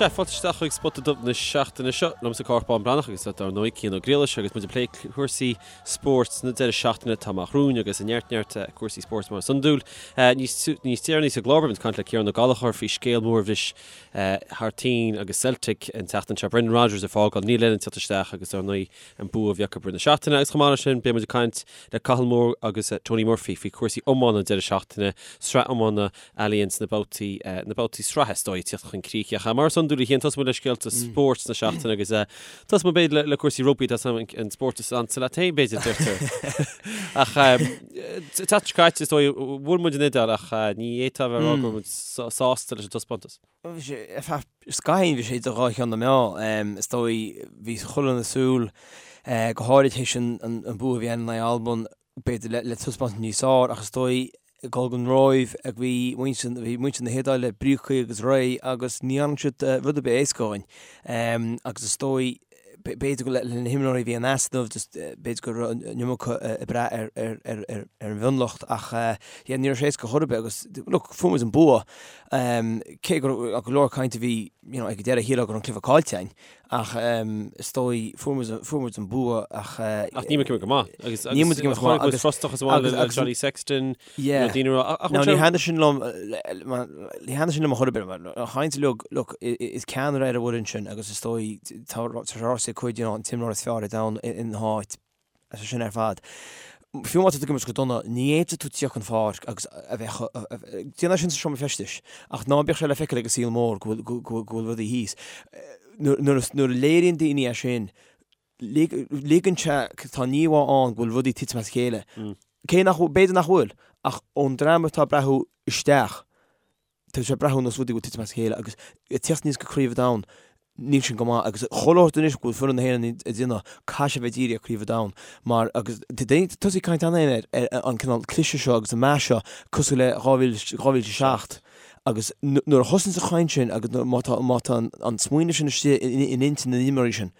Sea, fáilte isteach chuig Spota Dubh na seachtaine seo. Liomsa Cárthach Bán Breathnach agus dar ndóigh Cian Ó Griallais agus muid ag plé cúrsaí spóirt na deireadh seachtaine atá amach romhainn agus neart neart cúrsaí spóirt mar is iondúil. Níos níos deireanaí sa gclár beidh muid ag caint le Ciarán Ó Gallchóir faoi scéal mór a bhris thar toinn agus Celtic an tseachtain seo. Brendan Rodgers ag fágáil, Neil Lennon ag teacht isteach agus dar ndóigh an bua a bhí acu i rith na seachtaine agus chomh maith leis sin beidh muid ag caint le Cathal Moore agus Tony Murphy faoi chúrsaí iomána an deireadh seachtaine, sraith iomána Allianz na babhtaí, na babhtaí sraithe is dóigh ag tíocht chun críche. Ach mar is iondúil a Chiain, tosóidh muid le scéalta spóirt na seachtaine agus tosóidh muid b'fhéidir le cúrsaí rugbaí, tá an spórt is ansa leat féin b'fhéidir, deirtear. Ach tseachtain seo caite is dóigh, bhuail muid an Iodáil ach ní fhéadfá a bheith ag rá go raibh muid sásta leis an taispeántas. Bhí sé, ar feadh scaithín bhí sé idir dhá cheann na meá. Is dóigh, bhí chuile dhuine ag súil, go háirid théis an bua a bhí ann in aghaidh Alban, b'fhéidir le taispeántas níos fearr ach is dóigh ag dul don Róimh a bhí muintir, bhí muintir na hIodáile bríoctha agus réidh agus ní dhearna siad rud ar bith éasca dhúinn. Agus is dóigh, b'fhéidir go le na himreoirí a bhí in easnamh, just b'fhéidir go raibh an iomarca ag brath ar ar ar ar an mhionlucht ach yeah ní raibh sé éasca chor ar bith agus look fuair muid an bua cé go raibh go leor cainte a bhí you know ag an deireadh shílfeá go raibh an cluiche caillte againn Ach is dóigh, fuair muid, fuair muid an bua ach. Ach níl muid ag imirt go maith. Agus, agus, níl muid ag imirt go maith. Agus frustrachas amháin le Johnny Sexton. Yeah. Daoine rá, ach ní thaitníonn sin liom, ní thaitníonn sin liom a chor ar bith. An chaint uilig, look, is ceannaire ar an bhfoireann sin agus is dóigh, tá sé ráite ag cuid, you know, an t-imreoir is fearr ar domhan ina háit. Is é sin ar fad. Fiú má tá tú ag imirt go dona, ní fhéadfaidh tú tíocht chun pháirc agus a bheith déan é sin sa seomra feistis, ach ná bíodh sé le feiceáil ag an saol mór go bhfuil rudaí thíos. Nuair a léiríonn daoine é sin, ligeann sé, tá an íomhá ann go bhfuil rudaí ag titim as a chéile. Cé nach bhfuil, b'fhéidir nach bhfuil, ach ón dream atá ag breathnú isteach, Tá sé ag breathnú nós rudaí ag titim as a chéile agus ag tíocht aníos go Craobh an Domhain, níl sin go maith agus chuile shórt anois go bhfuil foireann na hÉireann ag déanamh, caithfidh sé bheith dírithe ar Craobh an Domhain mar agus tá daoine tosaithe ag caint cheana féin ar ar an cineál cliseadh seo agus an meath seo cosúil le 2000 2007 agus nuair a thosaíonn an chaint sin agus má tá má tá an smaoineamh sin istigh in intinn na n-imreoirí sin,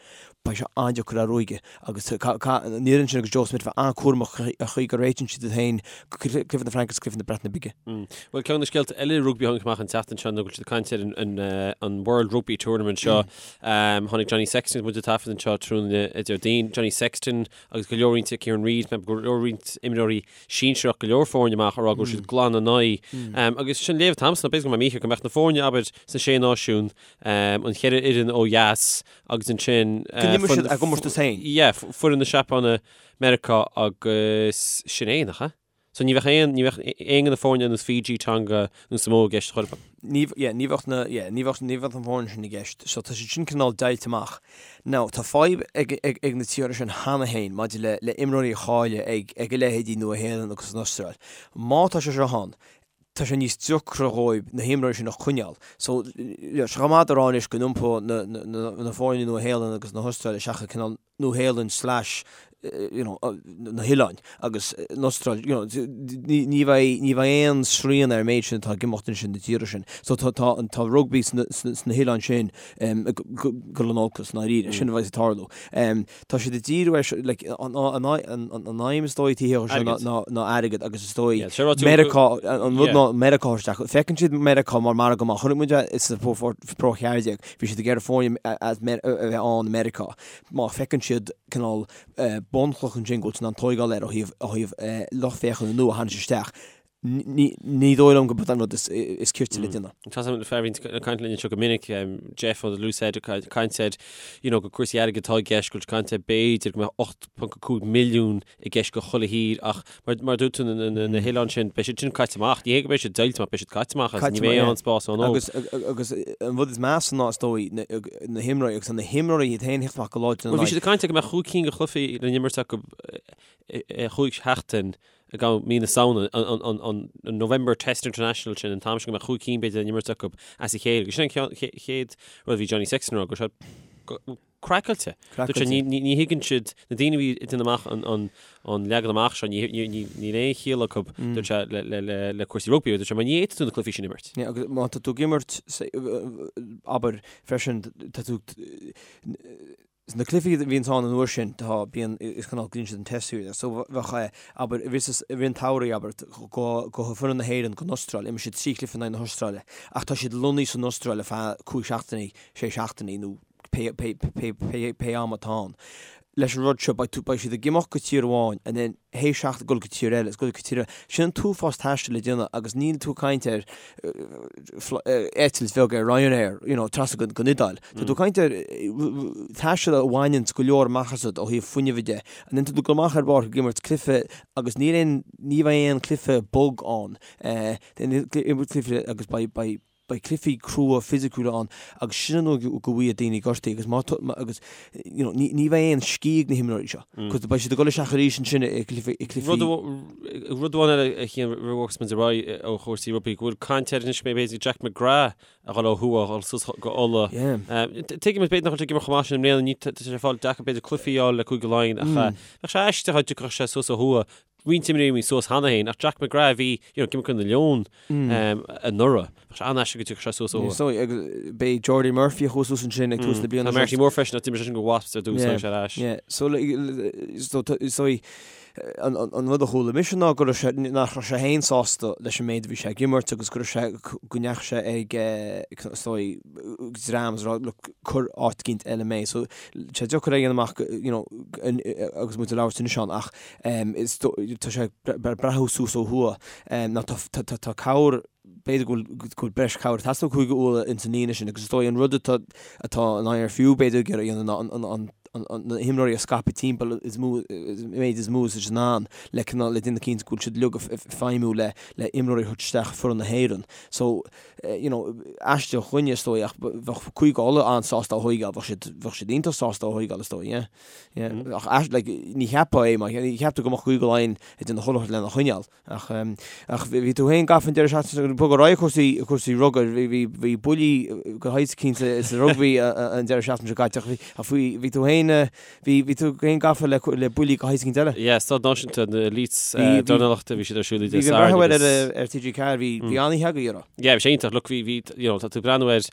beidh sé an-deacair a ruaigeadh agus an fhoireann sin agus Joe Schmidt bheith an-chúramach an chaoi go réitíonn siad iad féin go cluiche na Fraince agus cluiche na Breataine Bige. Bhuel, ceann de na scéalta eile rugbaí a tháinig amach an tseachtain seo ná go bhfuil siad ag caint ar an World Rugby Tournament seo. Tháinig Johnny Sexton, muid ag taifead anseo tráthnóna Déardaoin, Johnny Sexton agus go leor roinnt Kieran Read, go leor roinnt imreoirí sinsearach, go leor foirne amach ag rá go bhfuil siad glan in aghaidh. Agus sin léamh atá agamsa ná b'fhéidir go mbeidh mé mícheart go mbeadh na foirne, abair, sna Sé Náisiún, an cheithre fhoireann ó dheas agus ansin Go n-imreoidh siad a gcomórtas féin. Yeah, foireann na Seapáine, Meiriceá agus sin é, nach ea? So ní bheadh aon, ní bheadh aon de na foirne ar nós Fiji, Tonga nó Samoa i gceist chor ar bith. Ní, yeah, ní bheadh na, yeah, ní bheadh, ní bheadh na foirne sin i gceist. So tá siad sin cineál deighilte amach. Now, tá fadhb ag, ag, ag na tíortha sin cheana féin maidir le, le imreoirí a chailleadh ag, ag a leithéidí Nua-Shéalainn agus an Astráil. Má tá sé seo ann, tá sé níos deacra dhóibh na himreoirí sin a choinneáil. So, tá sé chomh maith a rá anois go n-iompóidh na, na, na foirne Nua-Shéalainn agus na hAstráile isteach i cineál Nua-Shéalainn slash you know, na hoileáin agus an Astráil, you know, ní, ní bheidh, ní bheidh aon srian ar an méid sin atá ag imeacht ansin na tíortha sin. So tá, tá, tá rugbaí sna, sna, sna hoileáin sin um, ag dul in olcas i ndáiríre, sin a bheidh ag tarlú. Um, Tá siad ag díriú ar, like, an aidhm is dóigh taobh thiar de seo ná airgead agus is dóigh Meiriceá, an rud ná Meiriceá isteach. Feiceann siad Meiriceá mar margadh maith. Chonaic muid é sa Pro 14, bhí siad ag iarraidh foirne as a bheith ann i Meiriceá. Má feiceann siad cineál bunchloch ansin go bhfuil siad in ann tóigeáil air ó thaobh lucht féachana nua a tharraingt isteach, Ní dóigh liom gurb é an rud is cirte le déanamh. Tá fear a bhíonn ag caint linn anseo go minic, Jeff ó The Loose Head, ag caint ar, you know, go cúrsaí airgid atá i gceist, go bhfuil caint ar b'fhéidir go mbeadh 8.5 milliún i gceist go chuile thír ach mar, mar dúirt tú na, na, na hoileáin sin, beidh siad sin caite amach. Ní hé go mbeidh siad deighilte amach, beidh siad caite amach agus ní bheidh aon spás ann dóibh. Agus, agus an rud is measa ná is dóigh na, na himreoirí agus na himreoirí iad féin ag theacht amach go láidir Bhuel bhí siad ag caint ar go mbeadh chúig cinn de chluichí le n-imirt acu i chúig sheachtain ag am mí na Samhna, an November Test International sin, an t-am sin go mbeadh chúig cinn b'fhéidir le n-imirt acu as a chéile. Agus sin an chéad rud a bhí Johnny Sexton a rá, go raibh sé craiceáilte. Dúirt sé, ní thuigeann siad, na daoine a bhí ag déanamh amach an leagan amach seo, níl aon chiall acu, dúirt sé, le cúrsaí rugbaí, dúirt sé, mar ní fhéadfaidh tú na cluichí sin a imirt. Agus má tá tú ag imirt, abair, freisin, tá tú. Na cluichí a bhíonns ann an uair sin, tá, bíonn, is cineál, glaonn siad an test series air. So bheadh, abair, i rith, i rith an tsamhraidh, abair, go, go foireann na hÉireann go n-Astráil, imir siad 3 chluiche in aghaidh na hAstráile, ach tá siad lonnaithe san Astráil ar feadh 5 seachtainí, 6 seachtainí nó pé, pé, pé, pé, pé am atá ann. Leis an rud seo, beidh tú, beidh siad ag imeacht go tír amháin and then théis seachtain dul go tír eile, is dul go tír eile. Sin an t-uafás taistil le déanamh agus níl tú ag caint ar eitilt bheag ar Ryanair, you know, trasna go, go Iodáil. Tá tú ag caint ar taisteal a bhaineanns go leor amach asat ó thaobh fuinnimh de. And then tá tú ag dul amach ar an bpáirc ag imirt cluiche agus níl aon, ní bheidh aon cluiche bog ann. Imirt cluiche agus beidh, beidh, beidh cluichí crua fisiciúla ann agus sin an uair go bhfaigheadh daoine gortaithe agus má tá, agus you know, ní, ní bheidh aon scíth ag na himreoirí seo cos beidh siad ag dul isteach arís ansin i gcluichí, i gcluichí. Rud, rud amháin eile a Chian roimh a bhogfas muid ar aghaidh ó chúrsaí rugbaí, go bhfuil caint air anois go mbeidh b'fhéidir Jack McGrath a dhul ó thuaidh, a dhul suas go Ulaidh. Yeah. Tuigim b'fhéidir nach bhfuil sé ag imirt chomh maith sin i mbliana, ní, tá sé ag fáil deacair b'fhéidir cluichí a fháil le Cúige Laighean ach bheadh sé aisteach dá dtiocfadh sé suas ó thuaidh roinnt imreoirí suas cheana féin, ach Jack McGrath a bhí, you know, ag imirt do na Leoin anuraidh. Bheadh sé an-aisteach go dtiocfadh sé suas ó thuaidh. So, agus b'é Jordi Murphy a chuaigh suas ansin ag tús na bliana Tá Marty Moore freisin, ach d'imir seisean do Wasps ar dtús, tháinig sé ar ais. Yeah, so, so, so, an, an, an rud a chuala mise ná go raibh sé, nach raibh sé féin sásta leis an méid a bhí sé ag imirt agus go raibh sé, go ndeachaigh sé ag, is dóigh, dream is a rá, look, cuir áit eicínt eile mé. So, sé deacair a dhéanamh amach, you know, agus muid ag labhairt anois ann, ach Is tá sé ag breathnú suas ó thuaidh. Ná tá cabhair, b'fhéidir go bhfuil breis cabhair ag teastáil ó Chúige Uladh ins an líne sin agus is dóigh an rud atá atá an IRFU b'fhéidir ag iarraidh a dhéanamh ná an na himreoirí a scaipeadh timpeall is mó méid is mó is in ann le cineál le déanamh cinnte go bhfuil siad uilig ag feidhmiú le le imreoirí a thabhairt isteach foireann na hÉireann. So you know aisteach dhuine is dóigh ach bheadh Cúige Uladh an-sásta é a thóigeáil, bheadh siad bheadh siad iontach sásta é a thóigeáil is dóigh, yeah. Yeah, ach ais, like, ní cheapfá é, mar ní cheaptar go mbeadh Cúige Laighean ag déanamh chuile shórt lena choinneáil. Ach, ach bhí tú féin gafa an deireadh seachtaine, bog ar aghaidh cúrsaí, cúrsaí rugair, bhí, bhí, bhí buillí de shaghas eicínt sa rugbaí an deireadh seachtaine seo caite, ach bhí, ach bhí, bhí tú féin, bhí, bhí tú féin gafa le, le buillí de shaghas eicínt eile. Yeah, Staid Náisiúnta na Elites dornálaíochta, bhí siad ar siúl Dé Bhí, bhí an breathnú ar, ar TG4, bhí, bhí an-oíche agaibh, an raibh? Yeah, bhí sé iontach, look, bhí, bhí, you know, tá tú ag breathnú ar,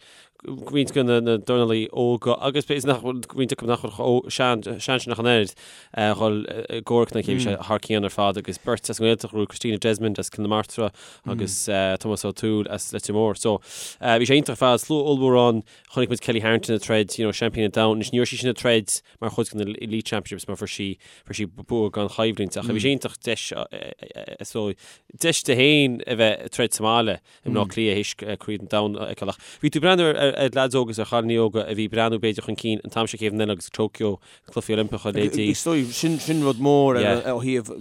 roinnt de na dornálaí óga agus b'fhéidir nach bhfuil roinnt acu nach bhfuil chomh sean sean sin ach an oiread a dhul i gcomhrac lena chéile. Bhí sé thar cionn ar fad agus beirt as an nGaeltacht a bhí Christina Desmond as Cill na Martra agus Tomás Ó Tuathail as Leitir Móir. So bhí sé iontach ar fad, slua ollmhór ann, chonaic muid Kellie Harrington ag troid, you know, seaimpín an domhain. Anois ní raibh sí sin ag troid mar chuid de na Elite Championships mar fuair sí fuair sí bua gan choimhlint ach bhí sé iontach deis so deis di féin a bheith ag troid sa mbaile. i mBleá Cliath théis Craobh an Domhain a fheiceáil. Ach bhí tú ag breathnú ar leaids óga is ar chailíní óga a bhí ag breathnú b'fhéidir chun cinn an t-am seo chéad bhliain eile agus Tokyo, na Cluichí Oilimpeacha, leithéidí. Is dóigh, sin sin rud mór ar ó thaobh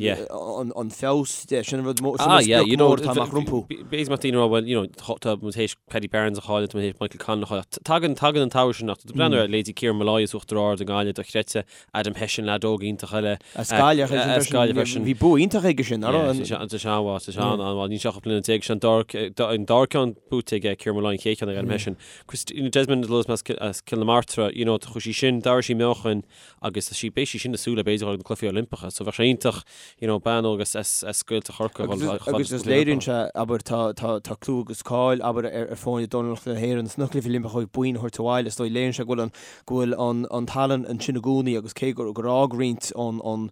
an feabhas de, sin rud mór, sin an sprioc mór atá amach rompu. B'fhéidir mbeadh daoine ag rá well, you know, tá muid théis Paddy Barnes a chailleadh, tá muid théis Michael Conlan a chailleadh. Tagann, tagann an t-am sin ach tá tú ag breathnú ar leithéidí Kieran Molloy as Uachtar Ard i nGaillimh, dochreidte, Adam Hession, leaid óg iontach eile. As Gaillimh As Gaillimh freisin. Bhí bua iontach aige sin, nach raibh? Tá sé an-mhaith, tá sé an-mhaith. Níl sé ach 18 bliana, sé an dara, an dara ceann buaite aige Kieran Molloy, an chéad cheann ag Adam Hession. Christina Desmond as Cill na Martra, you know, chuaigh sí sin, d'athraigh sí meáchain agus tá sí, beidh sí sin ag súil le b'fhéidir dhul ag na Cluichí Oilimpeacha. So bheadh sé iontach, you know, bean óg as, as, as Gaeltacht Chorcaí a dhul chomh fada Agus is léiríonn sé, abair, tá, tá, tá clú agus cáil, abair, ar, ar foirne dornálaíochta na hÉireann sna Cluichí Oilimpeacha ó thaobh boinn a thabhairt abhaile. Is dóigh, léiríonn sé go bhfuil an, go bhfuil an tallann ansin i gcónaí agus cé gur fhág roinnt ón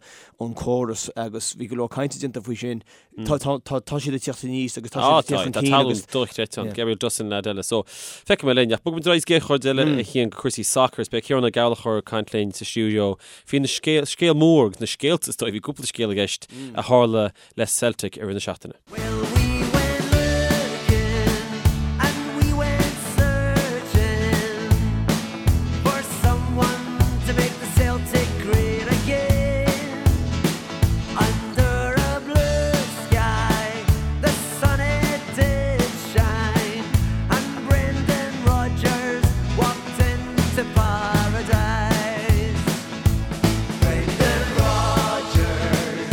córas agus bhí go leor cainte déanta faoi sin, tá siad ag tíocht aníos agus tá siad ag tíocht chun cinn agus. Tá tallann dochreidte ann, Gabriel Dossen leaid eile. So, feicfidh mé linn. Ach bogfaidh muid ar aghaidh sa gcéad chuid eile a Chian go cúrsaí sacair. Is beidh Ciarán Ó Gallchóir ag caint linn sa stiúideo faoi na scéal, scéal mór agus na scéalta is dóigh, bhí cúpla scéal i gceist a tharla le Celtic i rith na seachtaine. Well we went looking and we went searching for someone to make the Celtic great again. Under a blue sky the sun it did shine and Brendan Rodgers walked into paradise. Brendan Rodgers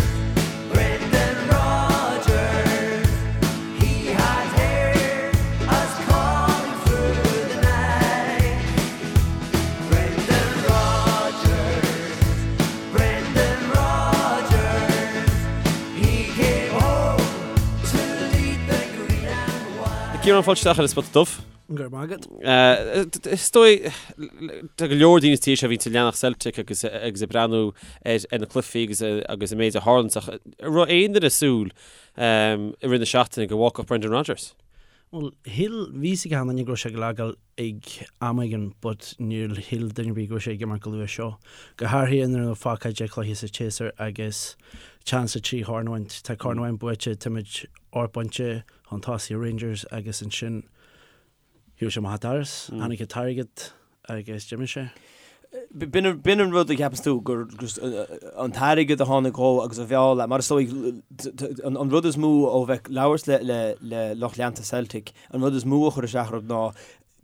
Brendan Rodgers, he had heard us calling through the night. Brendan Rodgers, Brendan Rodgers, he came home to lead the green and white. Ciarán, fáilte isteach ar an Spota Dubh. Go raibh maith agat. Is dóigh, tá go leor daoine sa tír seo a bhíonn ag leanacht Celtic agus agus ag breathnú ar na cluichí agus agus an méid a tharlaíonn ach an raibh aon duine ag súil i rith na seachtaine go bhfágfadh Brendan Rodgers? Bhuel, shíl, bhí fhios ag achan duine go raibh sé ag fágáil ag am éigin but níor shíl duine ar bith go raibh sé ag imeacht chomh luath seo. Go háirithe nuair a fágtha 10 cluiche sa tséasúr agus chance ar 3 chorn a bhaint. Tá corn amháin buaite, táimid 8 bpointe chun tosaigh ar Rangers agus ansin shiúil sé amach an doras, tháinig an t-airgead agus d'imigh sé. B'in an rud a cheapas tú, gur an t-airgead a tháinig dhó agus a mheall é, mar is dóigh an rud is mó ó bheith ag labhairt le lucht leanta Celtic, an rud is mó a chuir isteach orthu ná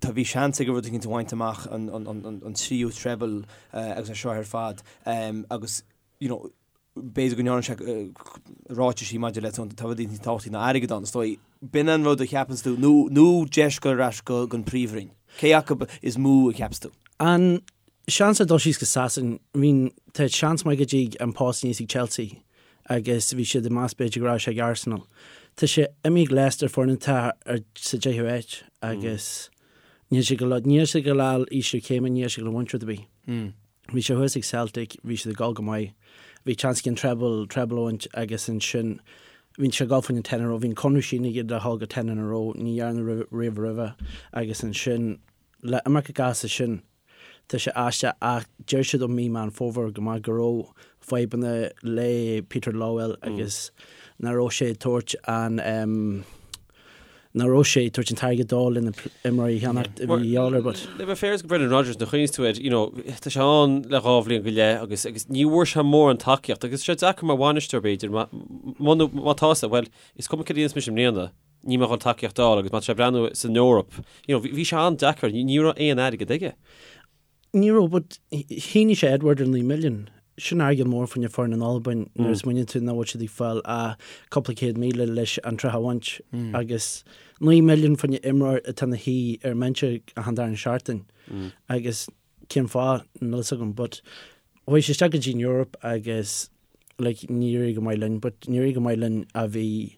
tá bhí seans aige rud éicint a bhaint amach, an tríú treble agus é seo ar fad agus you know b'fhéidir go ndearna sé ráitisí maidir le tá rudaí níos tábhachtaí ná airgead ann, is dóigh. B'in an rud a cheapanns tú, nó nó deis dul ar ais go an príomhroinn. Cé acu is mó a cheapas tú? An seans ar dul síos go Sasain, I mean, tá seans maith go dtig an post aníos ag Chelsea agus bhí siad ag meas b'fhéidir go raibh sé ag Arsenal. Tá sé imithe ag Leicester, foireann atá ar sa deichiú háit agus níl sé go níl sé ag dul ísliú céime, níl sé ag dul a bhaint rud ar bith. Bhí sé thuas ag Celtic, bhí siad ag dul go maith. Bhí chance aige an treble, treble a bhaint agus ansin bhí sé ag dul faoin ten in a row, bhí an conradh sínithe aige le dhul go ten in a row, ní dhearnadh riamh roimhe agus ansin le imeacht as sin tá sé aisteach ach deir siad ó mí Meán Fómhair go maith go raibh fadhbanna le Peter Lawwell agus nach raibh sé ag tabhairt an nach raibh sé ag tabhairt an t-airgead dó le na imreoirí a cheannacht a bhí a dhíobháil air but. Le bheith fair go Brendan Rodgers nuair a chuimhníos tú air, you know, tá sé ann le dhá bhliain go leith agus agus ní bhfuair sé mórán tacaíocht agus sé deacair mar bhainisteoir b'fhéidir má má tá sé, bhuel, is cuma cad a dhéanfas mise i mbliana, níl mé ag dul tacaíocht a fháil agus má tá sé ag breathnú san Eoraip, you know, bhí sé an-deacair, ní raibh aon airgead aige. Ní raibh, but shínigh sé Edouard ar 9 milliún. Sin airgead mór fá choinne foireann in Albain nuair a smaoiníonn tú nach bhfuil siad ag fáil ach cúpla 100,000 leis an tsraith a bhaint agus 9 milliún fá choinne imreoir atá ina shuí ar an mbinse achan darna seachtain agus cén fáth, níl fhios agam but chuaigh sé isteach go dtí an Eoraip agus like níor éirigh go maith linn but níor éirigh go maith linn a bhí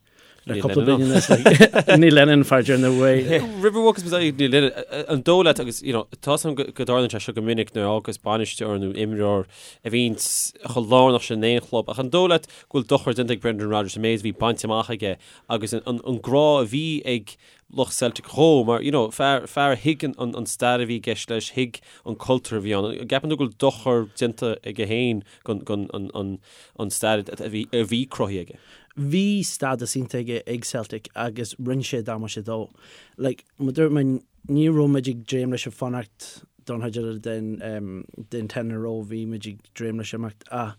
le cúpla bliain anuas like Neil Lennon fear deireanach uaidh. Roimh a bhfágas muid aghaidh Neil Lennon, an dóigh leat agus you know tá 'fhios agam go dtarlaíonn sé seo go minic nuair a fhágas bainisteoir nó imreoir a bhíonns chomh lárnach sin in aon chlub ach an dóigh leat go bhfuil dochar déanta ag Brendan Rodgers an méid a bhí bainte amach aige agus an grá a bhí ag lucht Celtic dhó mar you know fear fear a thuig an an stair a bhí i gceist leis, thuig an cultúr a bhí ann. An gceapann tú go bhfuil dochar déanta aige féin gon gon an an an stair a bhí a bhí cruthaithe aige? Bhí stádas iontach aige ag Celtic agus rinne sé damáiste dó. Like mar dúirt mé ní raibh muid ag dréim leis a fanacht don chuid eile den den ten in a row, bhí muid ag dréim leis imeacht ach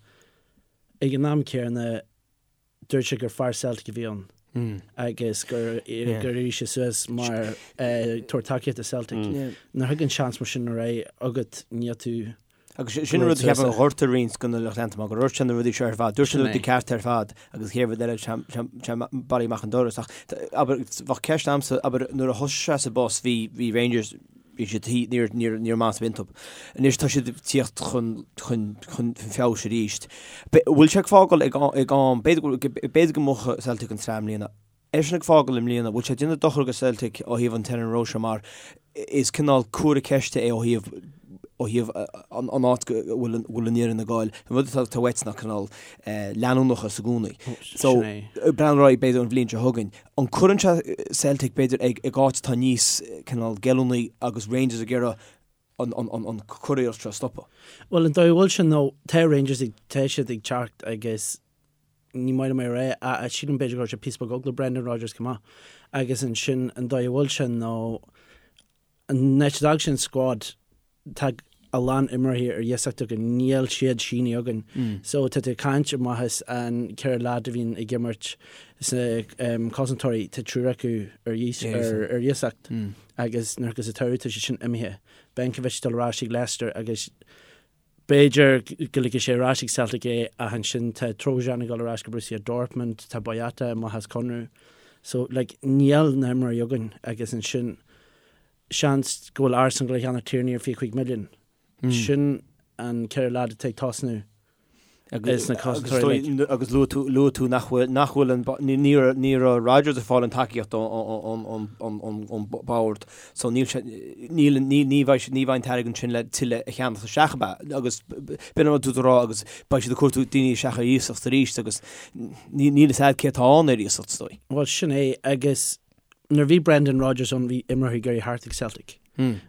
ag an am céanna Dúirt sé gur fear Celtic a bhí ann agus gur éirigh sé suas mar tabhairt tacaíocht do Celtic. Nuair a thagann seans mar sin ar aghaidh agat níl tú Agus sin an rud a cheapaim a ghortaigh roinnt de na lucht leanta mar gur dhúirt sé na rudaí seo ar fad, dúirt sé na rudaí cearta ar fad agus chéad rud eile sé bailithe amach an doras. Ach abair, bheadh ceist a'msa, abair, nuair a thosaigh sé sa bpost bhí bhí Rangers, bhí siad thí, níor, níor, níor mheas iontu. Anois tá siad ag tíocht chun, chun, chun feabhais arís. Bhfuil sé ag fágáil ag, ag am, b'fhéidir go, b'fhéidir go mbuafadh Celtic an tsraith i mbliana. Eisean ag fágáil i mbliana, bhfuil sé ag déanamh dochar go Celtic ó thaobh an ten in a row seo mar is cineál comhartha ceiste é ó thaobh, ó thaobh an, an áit go bhfuil an, bhfuil an fhoireann ag goil. An rud atá, atá uait ná cineál leanúnachas i gcónaí. So, breathnú ar aghaidh b'fhéidir an bhliain seo chugainn. An cuireann sé Celtic b'fhéidir ag áit atá níos cineál geallúnaí agus Rangers ag iarraidh an curiarracht seo a stopadh? Bhuel an dóigh a bhfuil sé nó tá Rangers ag, tá siad ag teacht agus ní maith liom é a rá ach sílim b'fhéidir go raibh sé píosa beag eagla Brendan Rodgers chomh maith agus ansin an dóigh a bhfuil sé nó an áit a d'fhág sé an squad tá a lán imreoirí ar iasacht againn, níl siad sínithe againn. So tá tú ag caint amach as an 4 leaid a bhíonn ag imirt sna cosantóirí, tá triúr acu ar ar iasacht agus nuair agus an t-samhradh tá siad sin imithe. Benkovic ag dul ar ais ag Leicester agus b'fhéidir go ligfidh sé ar ais ag Celtic é ach ansin tá Trojan ag dul ar ais go Borussia Dortmund, tá Boyata amach as conradh. So like níl na himreoirí againn agus ansin seans go bhfuil Arsenal ag dul a cheannach Tierney ar 25 milliún. Sin an 4 leaid atá ag tosnú. Is na cosantóirí like. Agus luaigh tú, luaigh tú nach bhfuil, nach bhfuil an, ní raibh, ní raibh Rodgers ag fáil an tacaíocht ón, ón, ón, ón, ón bord so níl sé, níl, ní, ní bheidh, ní bheidh an t-airgead sin le tuilleadh a cheannach isteach ab ea? Agus b'in an rud tú ag rá agus beidh siad ag cuartú daoine isteach ar iasacht arís agus ní, níl fhios a'd cé atá ann ar iasacht is dóigh. Bhuel sin é agus nuair a bhí Brendan Rodgers ann bhí imreoirí ag iarraidh theacht ag Celtic.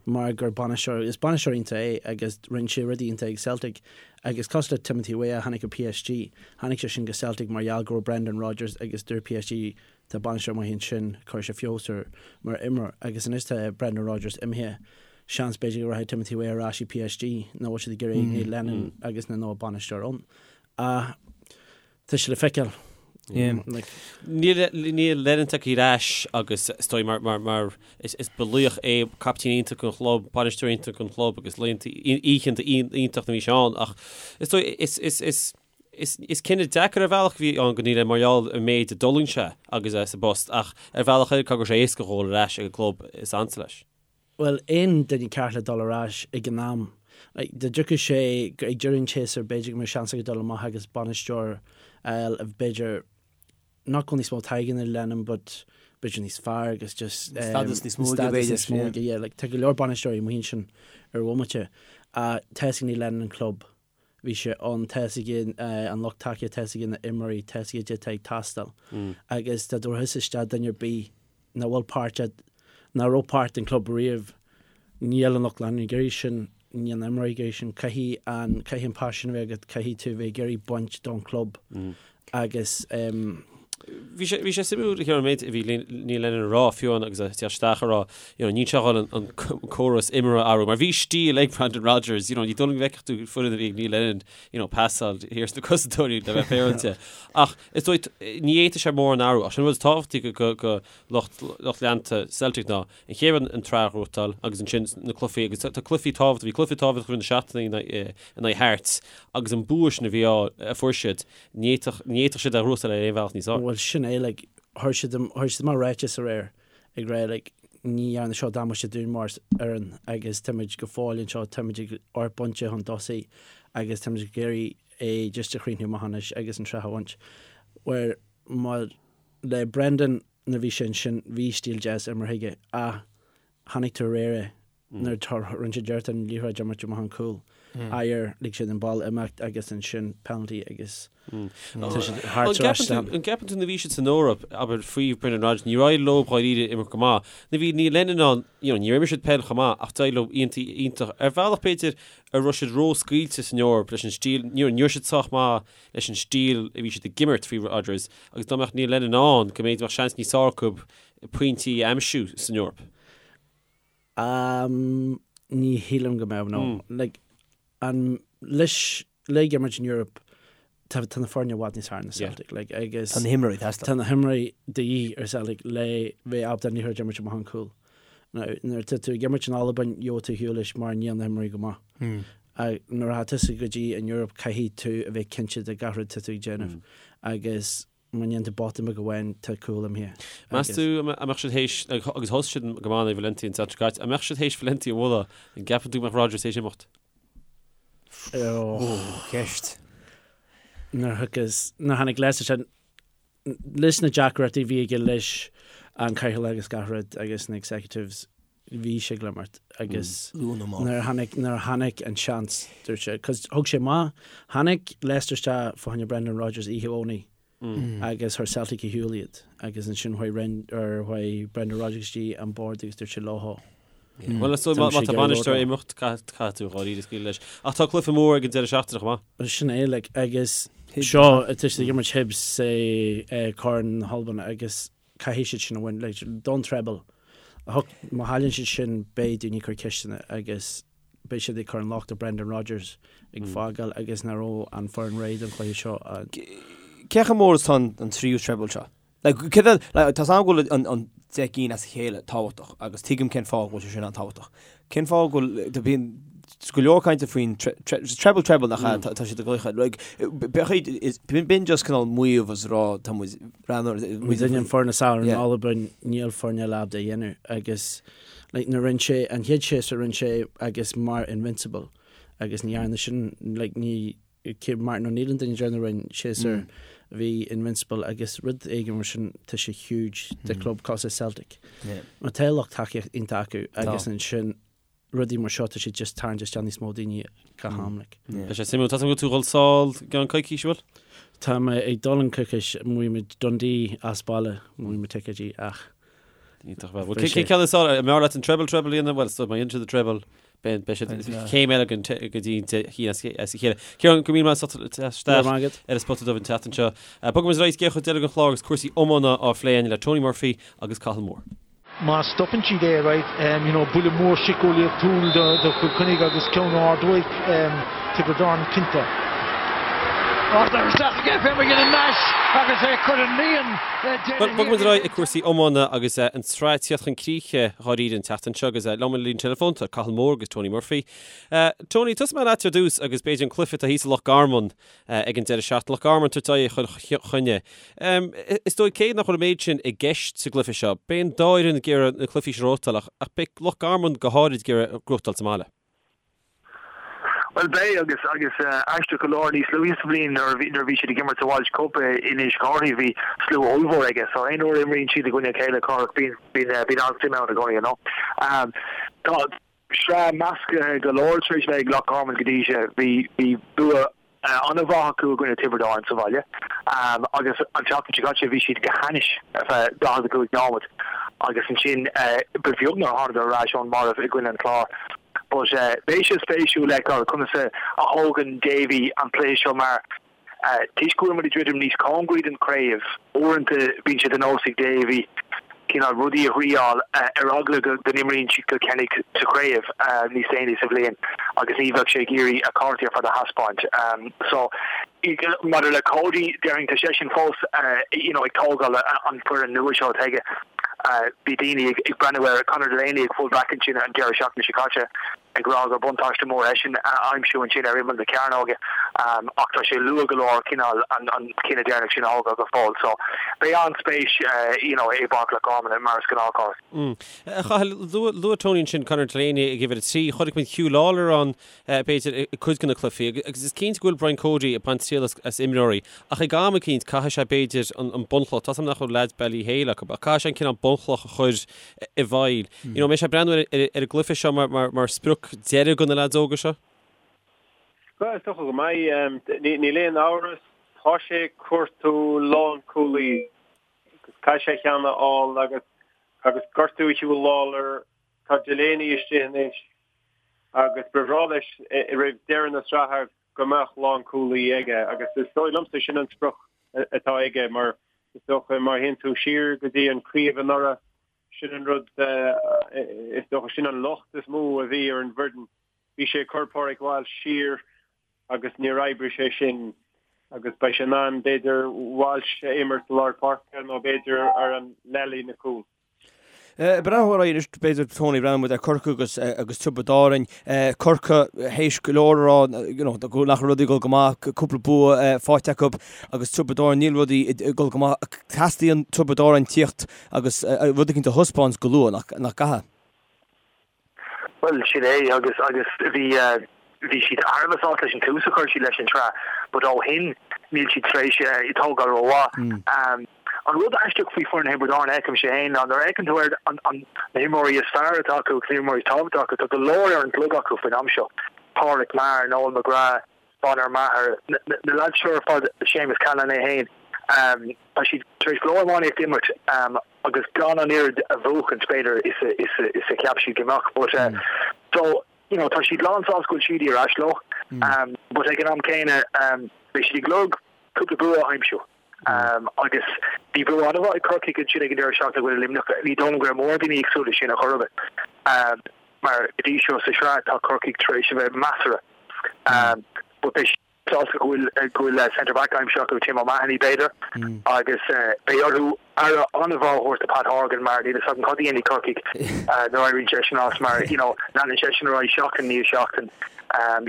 mar gur bainisteoir, is bainisteoir iontach é agus rinne sé rudaí iontach ag Celtic agus cosúil le Timothy Weah a tháinig ó PSG, tháinig sé sin go Celtic mar gheall go raibh Brendan Rodgers agus dúirt PSG tá bainisteoir maith ansin, cuirfidh sé feabhas air mar imreoir agus anois tá Brendan Rodgers imithe, seans b'fhéidir go rachaidh Timothy Weah ar ais i PSG nach bhfuil siad ag iarraidh Neil Lennon agus na nua bainisteoir ann. Ach Tá sé le feiceáil. Níl Lennon tagtha ar ais agus is dóigh mar mar mar is is ba laoch é captaen iontach an chlub, bainisteoir iontach an chlub agus laethanta oícheanta iontach na bhí sé ann ach is dóigh is is is is is cinneadh deacair ar bhealach a bhí ann go Neil mar gheall ar an méid a d'fhulaing sé agus é sa bpost ach ar bhealach eile caithfidh go raibh sé éasca dhul ar ais ag an gclub is ansa leis. Bhuel, aon duine ceart le dul ar ais ag an am. Like, dá dtiocfadh sé ag deireadh an tséasúir, b'fhéidir go mbeadh seans aige dul amach agus bainisteoir a fháil a b'fhéidir nach bhfuil níos mó taithí ná Lennon but b'fhéidir níos fearr agus just um, Stádas níos mó aige, stádas níos mó aige, yeah. Like, tá go leor bainisteoirí amuigh ansin ar bhomaite. Tá fhios ag Neil Lennon an club. Bhí sé ann, tá fhios aige an lucht tacaíochta, tá fhios aige na imreoirí, tá fhios aige caidé atá ag teastáil. Agus dá dtabharfá isteach duine ar bith nach bhfuil páirt, nach raibh páirt den club riamh, níl an lucht leanúna ag iarraidh sin, níl na imreoirí ag iarraidh sin. Caithfidh an, caithfidh an paisean a bheith agat, caithfidh tú a bheith ag iarraidh baint don chlub. Agus. Bhí sé, bhí sé suimiúil a an méid a bhí Neil Lennon a rá fiú amháin agus é ag teacht isteach a rá, you know, níl sé ag dul an córas imeartha a athrú, mar bhí stíl ag Brendan Rodgers, you know, ní dóigh liom go bhfeicfeadh tú foireann a bhí ag Neil Lennon, you know, pasáil thiar sna cosantóirí le bheith féaráilte. Ach is dóigh, ní fhéadfadh sé mórán athrú, ach sin an rud is tábhachtaí go, go, go lucht, lucht leanta Celtic ná an chéad rud an tsraith a ghnóthachtáil agus ansin na cluichí agus tá cluichí tábhachtach, bhí cluiche tábhachtach roimh na seachtainí in aghaidh Hearts agus an bua sin a bhí á, a fuair siad, Ní fhéadfadh, ní fhéadfadh siad é a ghnóthachtáil ar aon bhealach níos fearr. Bhuel, sin é, like, chuir siad, chuir siad amach ráiteas aréir ag rá, like, ní dhearna seo damáiste dúinn mar fhoireann agus táimid go fóill anseo, táimid ag amharc pointe chun tosaigh agus táimid ag iarraidh é just a chríochnú amach anois agus an tsraith a bhaint. Where, mar, le Brendan nuair a bhí sé ansin, bhí stíl deas imeartha aige ach chonaic tú aréir é, nuair a rinne siad iarracht an liathróid a imirt amach an cúl. Ayer, lig siad an ball imeacht agus ansin penalty agus tá siad thart ar ais san. An gceapann tú nuair a bhí siad san Eoraip, abair, faoi Brendan Rodgers, níor éirigh leo dháiríre imirt go maith. Nuair a bhí Neil Lennon ann, you know, níor imir siad peil chomh maith ach d'éirigh leo iontach, iontach. Ar bhealach b'fhéidir a raibh siad ró-scaoilte san Eoraip leis an stíl, ní raibh siad sách maith leis an stíl a bhí siad ag imirt faoi Rodgers agus dá mbeadh Neil Lennon ann go mb'fhéidir mbeadh seans níos fearr acu pointí a aimsiú san Eoraip. Um, ní shílim go mbeadh, no. Like, an, leis, le ag imirt in Europe, tá, tá na foirne i bhfad níos fearr ná Celtic, like, agus Tá na himreoirí ag teastáil. Tá na himreoirí de dhíth ar Celtic le bheith ábalta an liathróid a imirt amach an cúl. Now, nuair atá tú ag imirt in Albain, gheobhaidh tú ar shiúl leis mar níl na himreoirí go maith. Ach nuair atá tusa go dtí an Europe, caithfidh tú a bheith cinnte de gach rud atá tú ag déanamh. Agus Má ndéanann tú botún beag amháin, tá cúl imithe. Meas tú an mbeadh siad théis, agus thosaigh siad go maith in aghaidh Valencia an tseachtain seo caite, an mbeadh siad théis Valencia a bhualadh, an gceapann tú go mbeadh Rodgers théis imeacht? Ó, ceist. Nuair a thiocfas, nuair a tháinig Leicester sin, leis na deacrachtaí a bhí aige leis an cathaoirleach agus gach rud agus na executives, bhí sé ag imeacht agus nuair a tháinig, nuair a tháinig an seans, dúirt sé, cos thug sé amach, tháinig Leicester isteach fá choinne Brendan Rodgers oíche Dhomhnaigh agus chuir Celtic ar shiúl iad agus ansin chuaigh Ren, or chuaigh Brendan Rodgers go dtí an bord agus dúirt sé leo. Bhuel, is dóigh má tá bainisteoir ag imeacht, caithfidh tú dháiríre scaoileadh leis. Ach tá cluiche mór ag an deireadh seachtaine chomh maith. Sin é, like, agus seo, tá siad ag imirt Hibs i Corn na hAlban agus caithfidh siad sin a bhaint, like, don treble. Má chailleann siad sin beidh daoine ag cur ceisteanna agus beidh siad ag cur an locht ar Brendan Rodgers ag fágáil agus nach raibh an foireann réidh don chluiche seo. Cé chomh mór is atá an tríú treble seo? Like, cé mhéad, like, tá 's agam go bhfuil an, an 10 gcinn as a chéile tábhachtach agus tuigim cén fáth go bhfuil sé sin an-tábhachtach. Cén fáth go bhfuil, tá bíonn go leor cainte faoin treble treble nach ea, tá siad ag glaoch air. Like, b'fhéidir, b'in just cineál maíomh is rá tá muid breathnú ar. Muid an foireann is fearr in Albain, níl foirne eile ábalta a dhéanamh agus like nuair rinne sé an chéad séasúr rinne sé agus mar invincible agus ní dhearna sin like ní. Martin O'Neill an duine deireanach a rinne séasúr a bhí invincible agus rud éigin mar sin tá sé huge do club cosúil le Celtic. Mar tá lucht tacaíocht iontach acu agus ansin rudaí mar seo tá sé just tarraingt isteach níos mó daoine gach am like. Tá sé suimiúil. Tá tú ag dul sall i gceann coicís, bhfuil? Tá mé ag dul i gceann coicís, bhuaigh muid Dundee as baile, bhuaigh muid ticéidí ach Iontach bhuel. Cén ceann is fearr? An mb'fhearr leat an treble treble a dhéanamh? Bhuel, má dhéanann siad an treble, beidh beidh siad céim eile go dtí an cinn as a chéile. Ciarán, go raibh míle maith agat as teacht isteach ar an Spota Dubh an tseachtain seo. Bogfaidh muid ar aghaidh go cuid deiridh den chlár agus cúrsaí iomána á phlé againn le Tony Murphy agus Cathal Moore. Má stopann siad é, right, you know, buille mór síceolaíochtúil do Chill Chainnigh agus ceann ard uaidh Tiobraid Árann cinnte. Ardaithe isteach aige fé McGinnon Nash agus é curtha líon Bhuel, bogfaidh muid ar aghaidh ag cúrsaí iomána agus an tsraith ag tíocht chun críche dháiríre an tseachtain seo agus liom ar an líne teileafóin tá Cathal Moore agus Tony Murphy. Tony, tosóidh mé leat ar dtús agus b'fhéidir an cluiche atá thíos i Loch Garman ag an deireadh seachtaine. Loch Garman ag tabhairt aghaidh ar Chill Chainnigh. Is dóigh cé nach bhfuil an méid sin i gceist sa gcluiche seo, beidh an dá fhoireann ag iarraidh na cluichí seo a ghnóthachtáil ach beidh Loch Garman go háirid ag iarraidh gnóthachtáil sa mbaile. Bhuel beidh agus agus aisteach go leor níos luaithe sa bhliain nuair a bhí nuair a bhí siad ag imirt sa Walsh Cup in Inis Córthaidh bhí slua ollmhór aige so aon uair a imríonn siad i gcoinne a chéile Cárthach bíonn bíonn bíonn an-suim ann i gcónaí you know. Tá sraith measctha go leor tar éis bheith ag Loch Garman go dtí seo bhí bhí bua an-mhaith acu i gcoinne Tiobraid Árann sa bhaile agus an tseachtain seo caite bhí siad go hainnis ar feadh 45 nóiméad agus ansin ba bheag nár thánadar ar ais ón marbh i gcoinne an Chláir. But beidh sé spéisiúil le feiceáil conas a thógann Davy an cluiche seo mar toisc go bhfuil muid ag druidim níos cóngaraí don chraobh, uaireanta bíonn sé de nós ag Davy cineál rudaí a thriáil ar eagla go n-imríonn siad Cill Chainnigh sa chraobh níos déanaí sa bhliain agus ní bheadh sé ag iarraidh a chártaí ar fad a thaispeáint. So, maidir le Cody, déarfainn tá seisean fós you know ag tógáil an foireann nua seo atá aige. Bhí daoine ag breathnú ar Conor Delaney ag full back ansin an deireadh seachtaine seo caite. ag rá gur buntáiste mór eisean a aimsiú ansin ar imeall na cearnóige ach tá sé luath go leor cineál an cinneadh deireanach sin a thógáil go fóill. So beidh an-spéis you know i bPáirc Loch Garman mar is gnáth, Cárthach. A Chathail, luaigh Tony ansin Conor Delaney ag uimhir 3, chonaic muid Huw Lawlor ann b'fhéidir i cuid de na cluichí agus is cinnte go bhfuil Brian Cody ag baint triail as imreoirí ach ag am eicínt caithfidh sé b'fhéidir an bunchloch, tá 's agam nach bhfuil leaids Ballyhale acu ach caithfidh sé an cineál bunchloch a chur i bhfeighil. You know, an mbeidh sé ag breathnú ar an gcluiche seo mar sprioc deiridh do na leaids óga seo? Bhuel, is dócha go mbeidh. Níl aon amhras, tá sé ag cuartú lánchúlaí agus caithfidh sé ceann a fháil agus agus gortú Huw Lawlor, tá Delaney istigh anois agus ba bhreá leis roimh deireadh na sraithe go mbeadh lánchúlaí aige agus is dóigh liomsa sin an sprioc atá aige mar is dócha má théann tú siar go dtí an craobh anuraidh sin an rud is dócha sin an locht is mó a bhí ar an bhfoireann. Bhí sé ag cur Pádraig Walsh siar agus níor oibrigh sé sin agus beidh sé in ann b'fhéidir Walsh a imirt i lár páirce nó b'fhéidir ar an leathlíne cúil. Breathnú ar aghaidh anois, b'fhéidir, Tony, breathnóidh muid ar Corcaigh agus agus Tiobraid Árainn. Corcaigh théis go leor a rá you know nach raibh rudaí ag dul go maith, cúpla bua faighte acu agus Tiobraid Árainn níl rudaí ag dul go maith. Teastaíonn Tiobraid Árainn tíocht agus rud éicint a thaispeáint go luath, nach nach gcaithfidh? Bhuel, sin é agus agus bhí bhí siad thar a bheith sásta leis an tús a chuir siad leis an tsraith but ó shin níl siad tar éis tógáil rómhaith. An rud aisteach faoi foireann Thiobraid Árann a fheicimse féin ná nuair a fheiceann tú ar na himreoirí is fearr atá acu agus na himreoirí is tábhachtaí acu, tá go leor ar an gclog acu faoin am seo, Pádraic Maher, Noel McGrath, Bonner Maher, na leaids seo ar fad, Séamus Callanan é féin, tá siad tar éis go leor iománaíocht a imirt agus gan an oiread a bhuachaint b'fhéidir is a cheap siad go mbeadh. But so, you know, tá siad lán sásta go bhfuil Sheedy ar ais leo but ag an am céanna beidh siad ag lorg cúpla bua a aimsiú. Agus bhí bua an-mhaith ag Corcaigh ansin ag an deireadh seachtaine i gcoinne Luimneach. Ní dóigh liom go raibh mórán daoine ag súil leis sin ar chor ar bith. Mar go dtí seo sa sraith tá Corcaigh tar éis a bheith measartha. But beidh siad sásta go bhfuil go bhfuil centre back aimsithe acu, Tim O'Mahony b'fhéidir. Agus beidh orthu aire an-mhaith a thabhairt do Pat Horgan mar níl a fhios agam cad a dhéanfaidh Corcaigh nuair a éiríonn seisean as mar you know leanann seisean ar aghaidh seachtain i ndiaidh seachtain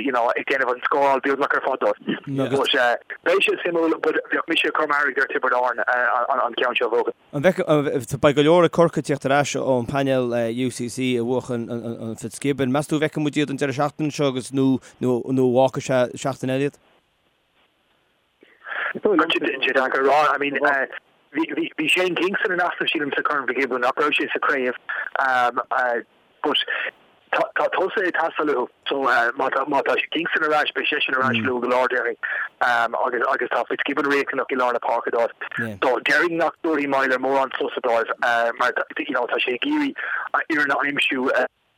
you know ag déanamh an scóráil beagnach ar fad dóibh. But beidh sé suimiúil but bheadh mise ag cur m'airgead ar Tiobraid Árann an ceann seo a bhuachan. An bhfeicfidh, beidh go leor ag Corcaigh ag tíocht ar ais ón bpainéal UCC a bhuachan an Fitzgibbon. Meas tú an bhfeicfidh muid iad an deireadh seachtaine seo agus nó nó nó an bhfágfaidh sé seachtain eile iad? Tá sé deacair a rá. I mean, bhí Shane Kingston in easnamh sílim sa Corn Fitzgibbon, nach raibh sé sa chraobh but tá tosaithe ag teastáil uathu so má tá má tá Kingston ar ais beidh seisean ar ais luath go leor déarfainn agus agus tá Fitzgibbon riachtanach i lár na páirce dóibh. So déarfainn nach dtabharfaidh Meyler mórán sosa dóibh mar you know tá sé ag iarraidh a fhoireann a aimsiú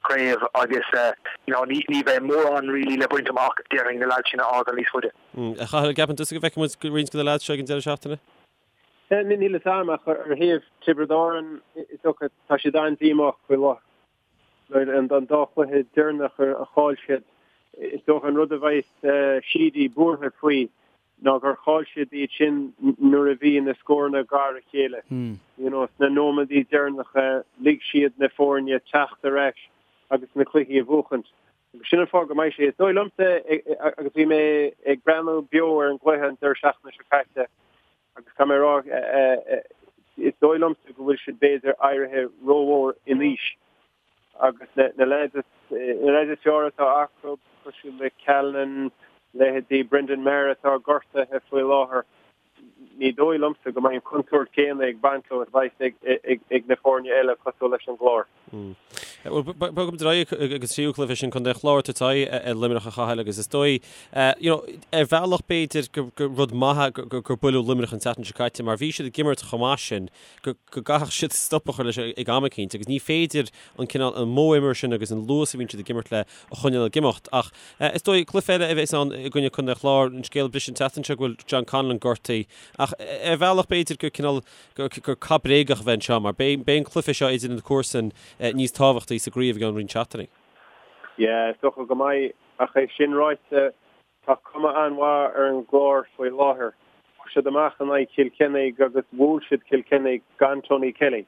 craobh agus you know ní ní bheidh mórán really le baint amach déarfainn na leaids sin a fhágáil níos faide. A Chathail, an gceapann tusa go bhfeicfidh muid roinnt de na leaids seo ag an deireadh seachtaine? Níl fhios a'm ach ar thaobh Tiobraid Árann is dócha tá siad an-díomách faoi láthair. An dá chluiche deireanach a chaill siad, is dócha an rud a bheidh Sheedy buartha faoi ná gur chaill siad iad sin nuair a bhí na scóranna gar a chéile. You know, sna nóiméadaí deireanacha lig siad na foirne teacht ar ais agus na cluichí a bhuachaint. Agus sin an fáth go mbeidh sé, is dóigh liomsa, agus bhí mé ag breathnú beo ar an gcluiche an deireadh seachtaine seo caite, Agus caithfidh mé a rá, is dóigh liomsa go bhfuil siad b'fhéidir éirithe rómhór in aois agus na leaids is fearr atá acu, cosúil le Callanan, leithéidí Brendan Maher atá gortaithe faoi láthair, ní dóigh liomsa go mbeidh an contúirt chéanna ag baint leo is a bheas ag na foirne eile cosúil leis an gClár. Bhuel, bogfaimid ar aghaidh ag an tríú cluiche sin, Contae an Chláir ag tabhairt aghaidh ar Luimneach a Chathail agus is dóigh, you know, ar bhealach b'fhéidir gur rud maith gur buaileadh Luimneach an tseachtain seo caite mar bhí siad ag imirt chomh maith sin go gcaithfeadh siad stop a chur leis ag am eicínt agus ní féidir an cineál, an modh imeartha sin agus an luas a bhíonn siad ag imirt le a choinneáil ag imeacht. Ach is dóigh, cluiche eile a bheas ann i gcoinne Contae an Chláir, an scéal a bris an tseachtain seo go bhfuil John Conlon gortaithe ach ar bhealach b'fhéidir gur cineál gur cath bréagach a bheidh anseo mar beidh an cluiche seo idir na comharsain níos tábhachtaí sa gcraobh i gceann roinnt seachtainí. Yeah, is dócha go mbeidh, ach é sin ráite, tá cuma an-mhaith ar an gClár faoi láthair. Chuaigh siad amach in aghaidh Chill Chainnigh agus bhuail siad Cill Chainnigh gan Tony Kelly.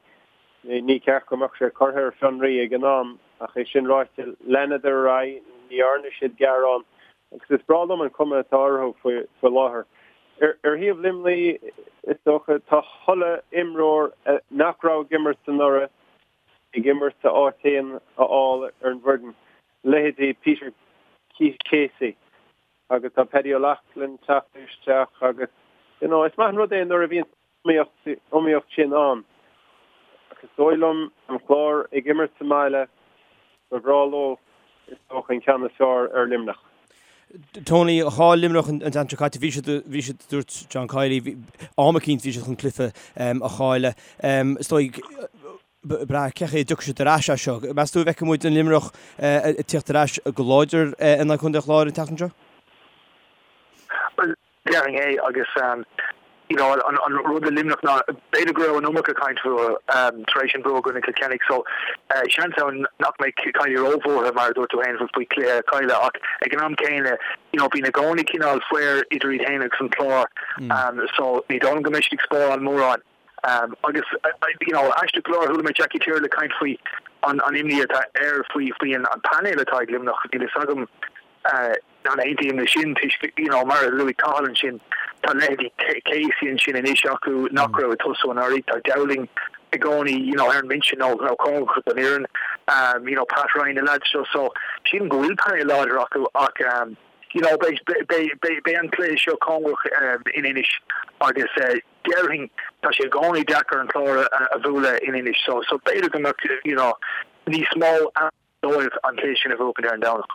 Ní ceart go mbeadh sé curtha ar fionraí ag an am, ach é sin ráite, leanadar ar aghaidh, ní dhearna siad gearán agus is breá liom an cuma atá orthu faoi láthair. Ar thaobh Luimnigh, is dócha, tá chuile imreoir nach raibh ag imirt anuraidh ag imirt a áit féin a fháil ar an bhfoireann, leithéidí Peter Casey agus tá Paddy O'Loughlin teacht isteach agus you know is maith an rud é nuair a bhíonn iomaíocht sin ann. Ach is dóigh liom an Clár ag imirt sa mbaile, ba bhreá leo is dócha an ceann is fearr ar Luimneach. Tony, chaill Luimneach an tseachtain seo caite, bhí siad, bhí siad, dúirt John Kiely, bhí, am eicínt bhí siad chun cluiche a chailleadh. Is dóigh, brath cén chaoi a dtiocfaidh siad ar ais as seo. Meas tú an bhfeicfidh muid an Luimneach ag tíocht ar ais go láidir in aghaidh Chontae an Chláir an tseachtain seo? Bhuel, Déarfainn é agus you know an rud le Luimneach ná b'fhéidir go raibh an iomarca caint fúthu tar éis an bua i gcoinne Chill Chainnigh so seans ann nach mbeidh Kiely róbhuartha mar a dúirt tú féin faoi chluiche a chailleadh ach ag an am céanna you know bíonn i gcónaí cineál faobhar idir iad féin agus an Clár so ní dóigh liom go mbeidh siad ag spáráil mórán. Agus you know aisteach go leor chuala mé Jackie Tyrrell ag caint faoi an imní atá air faoi faoi an painéal atá ag Luimneach níl fhios agam An aontaím leis sin toisc, you know, mar a luaigh Cathal ansin, tá leithéidí Casey ansin anois acu nach raibh ag tosú anuraidh, tá Dowling i gcónaí, you know, ar an mbinse nó nó cóngarach don fhoireann, um, you know, Pat Ryan, na lads seo, so sílim go bhfuil painéal láidir acu ach, um, you know, beidh, beidh, beidh, beidh an cluiche seo cóngarach um, in Inis agus uh, déarfainn tá sé i gcónaí deacair an Clár a, a bhualadh in Inis so, so b'fhéidir go mbeadh, you know, níos mó dóibh an cluiche sin a bhuachaint ar an Domhnach.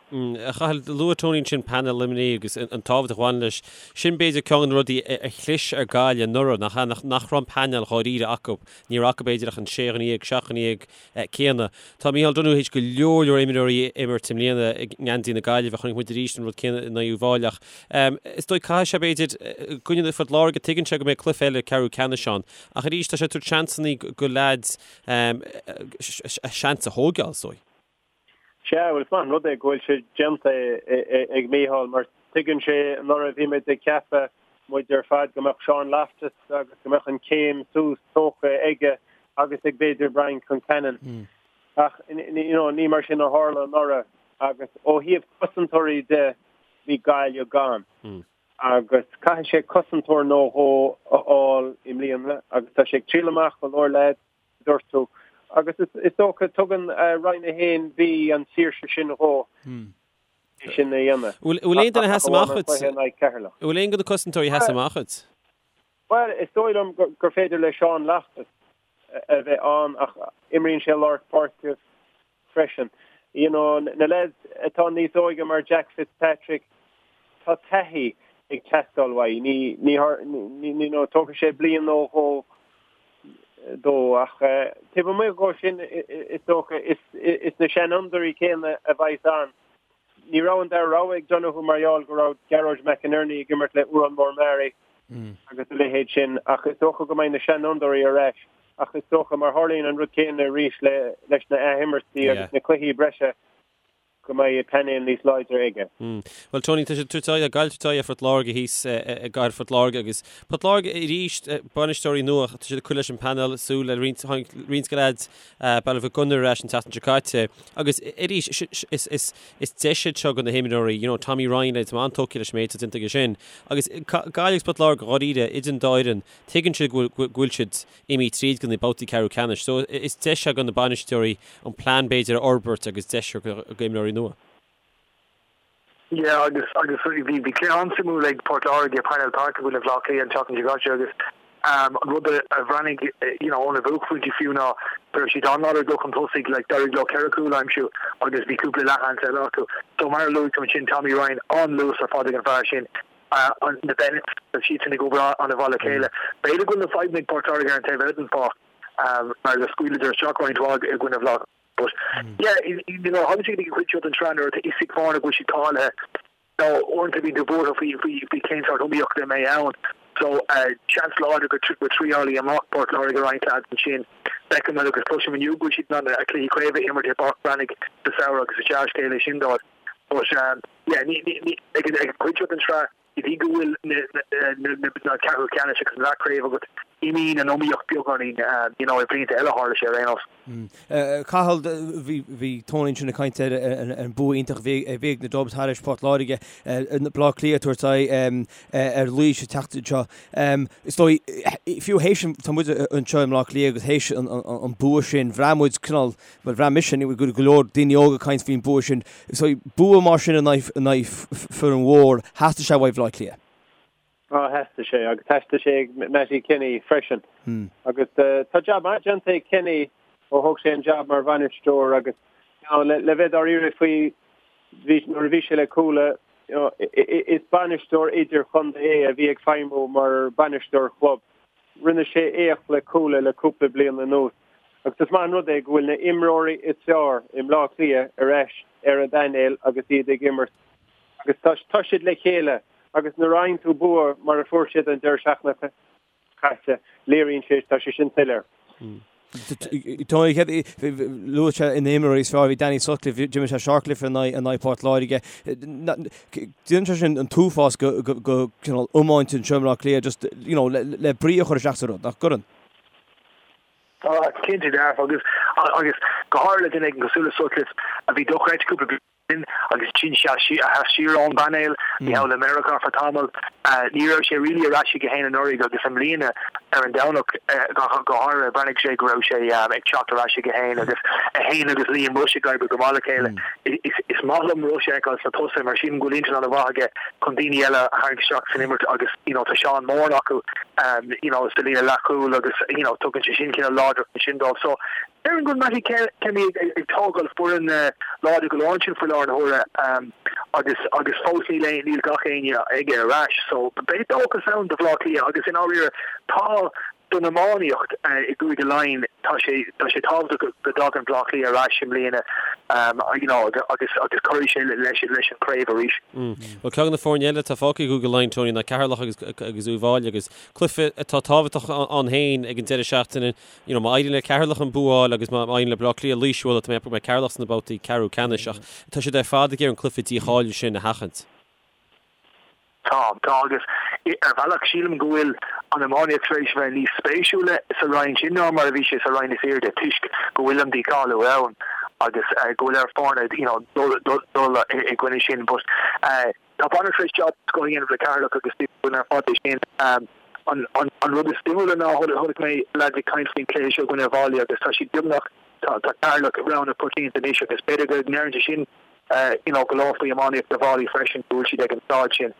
A Chathail, luaigh Tony ansin painéal Luimnigh agus an tábhacht a bhaineann leis. Sin b'fhéidir ceann de na rudaí a chlis ar Gaillimh anuraidh, nach ea? Nach raibh an painéal dháiríre acu. Ní raibh acu b'fhéidir ach an sé dhuine dhéag, seacht dhuine dhéag céanna. Tá Micheál Donoghue théis go leor leor imreoirí a imirt i mbliana i ngeansaí na Gaillimhe. Chonaic muid arís an rud céanna in aghaidh Uíbh Fhailí ach is dóigh caithfidh sé b'fhéidir i gcoinne Phort Láirge tuigeann sé go mbeidh cluiche eile ceathrú ceannais ann ach arís tá sé ag tabhairt seansanna go leaids a seans a thógáil, is dóigh. Sea, bhuel, is maith an rud é go bhfuil sé déanta ag Micheál mar tuigeann sé anuraidh bhí muid ag ceapadh, muid ar fad, go mbeadh Seán Loftus agus go mbeadh an chéim suas tógtha aige agus ag b'fhéidir Brian Concannon. Ach you know, ní mar sin a tharla anuraidh agus ó thaobh cosantóirí de bhí Gaillimh gann. Agus caithfidh sé cosantóir nó dhó a fháil i mbliana agus tá sé ag triail amach go leor leaids, a dúirt tú. Agus is dócha, tugann Roinn 1B an saoirse sin dhó é sin a dhéanamh. Bhfuil aon duine a sheas amach dhuit? Bhfuil aon de na cosantóirí a sheas amach dhuit? Bhuel, is dóigh liom gur féidir le Seán Loftus a bheith ann ach imríonn sé lár páirce freisin. You know, na lads atá níos óige mar Jack Fitzpatrick, tá taithí ag teastáil uaidh. Ní, ní, ní, you know, tógfaidh sé bliain nó dhó dó ach taobh amuigh dhó sin is dócha is, is na seanfhondúirí céanna a bheas ann. Ní raibh an dara rogha ag Donoghue mar gheall go raibh Gearóid McInerney ag imirt le Odhrán Mór Meáraí agus a leithéid sin ach is dócha go mbeidh na seanfhondúirí ar ais ach is dócha mar tharlaíonn an rud céanna arís le leis na athimirtí agus na cluichí breise go mbeidh painéal níos láidre aige. Bhuel Tony, tá siad ag tabhairt aghaidh, Gaillimh ag tabhairt aghaidh ar Phort Láirge thíos i gcathair Phort Láirge agus Port Láirge arís, bainisteoirí nua, tá siad ag cur leis an bpainéal, súil le roinnt, tháinig roinnt de leaids Baile Mhic Gonair ar ais an tseachtain seo caite agus arís is deis iad seo do na himreoirí, you know, Tommy Ryan, tá mé an-tógtha leis an méid atá déanta aige sin. Agus Gaillimh agus Port Láirge dháiríre, idir an dá fhoireann, tuigeann siad go bhfuil siad imithe tríd go na babhtaí ceathrú ceannais. So is deis é do na bainisteoirí an plean b'fhéidir a fhorbairt agus deis do imreoirí nua. Yeah agus agus bhí bhí cluiche an-suimiúil ag Port Láirge i Parnell Park i gcoinne Bhaile Átha Cliath an tseachtain seo caite agus an rud a a bhreathnaigh you know óna bhuaicphointí fiú ná go raibh siad an-láidir ag dul chun tosaigh like d'éirigh leo ceithre chúl a aimsiú agus bhí cúpla leathsheans eile acu. So mar a luaigh tú ansin Tommy Ryan an-luas ar fad ag an bhfear sin an na Bennetts tá siadsan ag obair an-mhaith le chéile. B'fhéidir go bhfuil na fadhbanna ag Port Láirge ar an taobh eile den pháirc mar go scaoileadar isteach roinnt mhaith i gcoinne Bhaile Átha But yeah, you know, thagann sé go dtí an chuid seo den tsraith nuair atá fhios ag foirne go bhfuil siad cáilithe. Nó uaireanta bíonn tú buartha faoi faoi faoi cén sórt iomaíochta a mbeidh ann. So seans láidir go go dtriálfaidh amach Port Láirge roinnt leaids ansin. Feicim agus cloisim inniu go bhfuil siad in ann a cluichí craoibhe a imirt i bPáirc Bhreathnaigh sa samhradh agus is dea-scéal é sin dóibh. But yeah, ní ní ní ag an ag an chuid seo den tsraith Go dtí go bhfuil na ceathrú ceannais agus an leathchraobh agat, imíonn an iomaíocht beagáinín, you know, i blianta eile tharla sé ar aon nós. Cathal, bhí Tony ansin ag caint ar an bua iontach a bhí ag na Dubs thairis Port Láirge, Baile Átha Cliath ag tabhairt aghaidh ar Laois an tseachtain seo. Is dóigh, fiú théis, tá muid anseo i mBleá Cliath agus théis an bua sin, bhraith muid cineál Bhuel, bhraith mise, go go leor daoine óga ag caint faoin bua sin. So, bua mar sin in aghaidh foireann mhór, theastaigh sé uaidh Bhaile Átha Cliath. Á, theastaigh sé, agus theastaigh sé ag Mattie Kenny freisin. Agus tá jab maith déanta ag Kenny ó thóg sé an jab mar bhainisteoir agus you know, le, le bheith dáiríre faoi bhí, nuair a bhí sé le Cuala, you know, is bainisteoir idir-chontae é a bhí ag feidhmiú mar bainisteoir chlub. Rinne sé éacht le Cuala le cúpla bliain anuas agus is maith an rud é go bhfuil na imreoirí is fearr i mBleá Cliath ar ais ar an bpainéal agus iad ag imirt agus tá tá siad le chéile agus nuair a fhaigheann tú bua mar a fuair siad an deireadh seachtaine caite, léiríonn sé, tá sé sin soiléir. Tony, luaigh sé na himreoirí is fearr, bhí Danny Sutcliffe, d'imir sé sárchluiche in aghaidh Port Láirge. Déanann sé sin an t-uafás go cineál iomáint anseo i mBleá Cliath just, you know, le brí a chur isteach sa rud, nach gcuireann? Tá, cinnte dearfa agus agus go háirithe le duine éigin cosúil le Sutcliffe a bhí dochreidte cúpla bliain sin agus ansin sheas siar ón bpainéal, bhí thall i Meiriceá for tamall. Ní raibh sé really ar ais aige féin anuraidh agus i mbliana ar an Domhnach go háirithe bhreathnaigh sé go raibh sé ag teacht ar ais aige féin agus é féin agus Liam Rushe ag oibriú go maith le chéile. Is maith liom Rushe a fheiceáil sna tosaithe mar sílim go bhfuil intinn an-mhaith aige chun daoine eile a tharraingt isteach san imirt agus you know tá Seán Moran acu you know sa líne leathchúil agus you know tugann sé sin cineál láidreacht ansin dóibh. So Déarfainn go bhfuil Mattie Kenny ag tógáil foireann láidir go leor ansin faoi láthair na huaire agus agus fós níl aon níl gach éinne aige ar ais so beidh dóchas ann do Bhaile Átha Cliath agus i ndáiríre tá don iománaíocht i gCúige Laighean tá sé tá sé tábhachtach go go dtagann Baile Átha Cliath ar ais i mbliana you know agus agus cuirfidh sé leis leis an chraobh arís. Bhuel ceann de na foirne eile atá fágtha i gCúige Laighean Tony ná Ceatharlach agus agus Uíbh Fhailí agus cluiche atá tábhachtach ann féin ag an deireadh seachtaine You know, má éiríonn le Ceatharlach an bua a fháil agus má éiríonn le Baile Átha Cliath Laois a bhualadh, tá mé ag ceapadh go mbeidh Ceatharlach sna babhtaí ceathrú ceannais ach tá siad ar fad ag iarraidh an cluiche dícháilithe sin a sheachaint. Tá, tá agus ar bhealach sílim go bhfuil an iománaíocht tar éis a bheith níos spéisiúla sa roinn sin ná mar a bhí sé sa roinn is airde toisc go bhfuil an dícháiliú ann agus go bhfuil ar foirne you know dul dul i gcoinne sin but Tá bainisteoir tar éis jab den scoth a dhéanamh le Ceatharlach agus dúinn ar fad é sin. An rud is suimiúla ná chonaic mé leaids ag caint faoin chluiche seo i gcoinne Uíbh Fhailí agus tá siad beagnach, tá Ceatharlach rogha na coitianta anois agus b'fhéidir go ndeireann sé sin you know go leor faoi iománaíocht Uíbh Fhailí freisin go bhfuil siad ag an staid sin.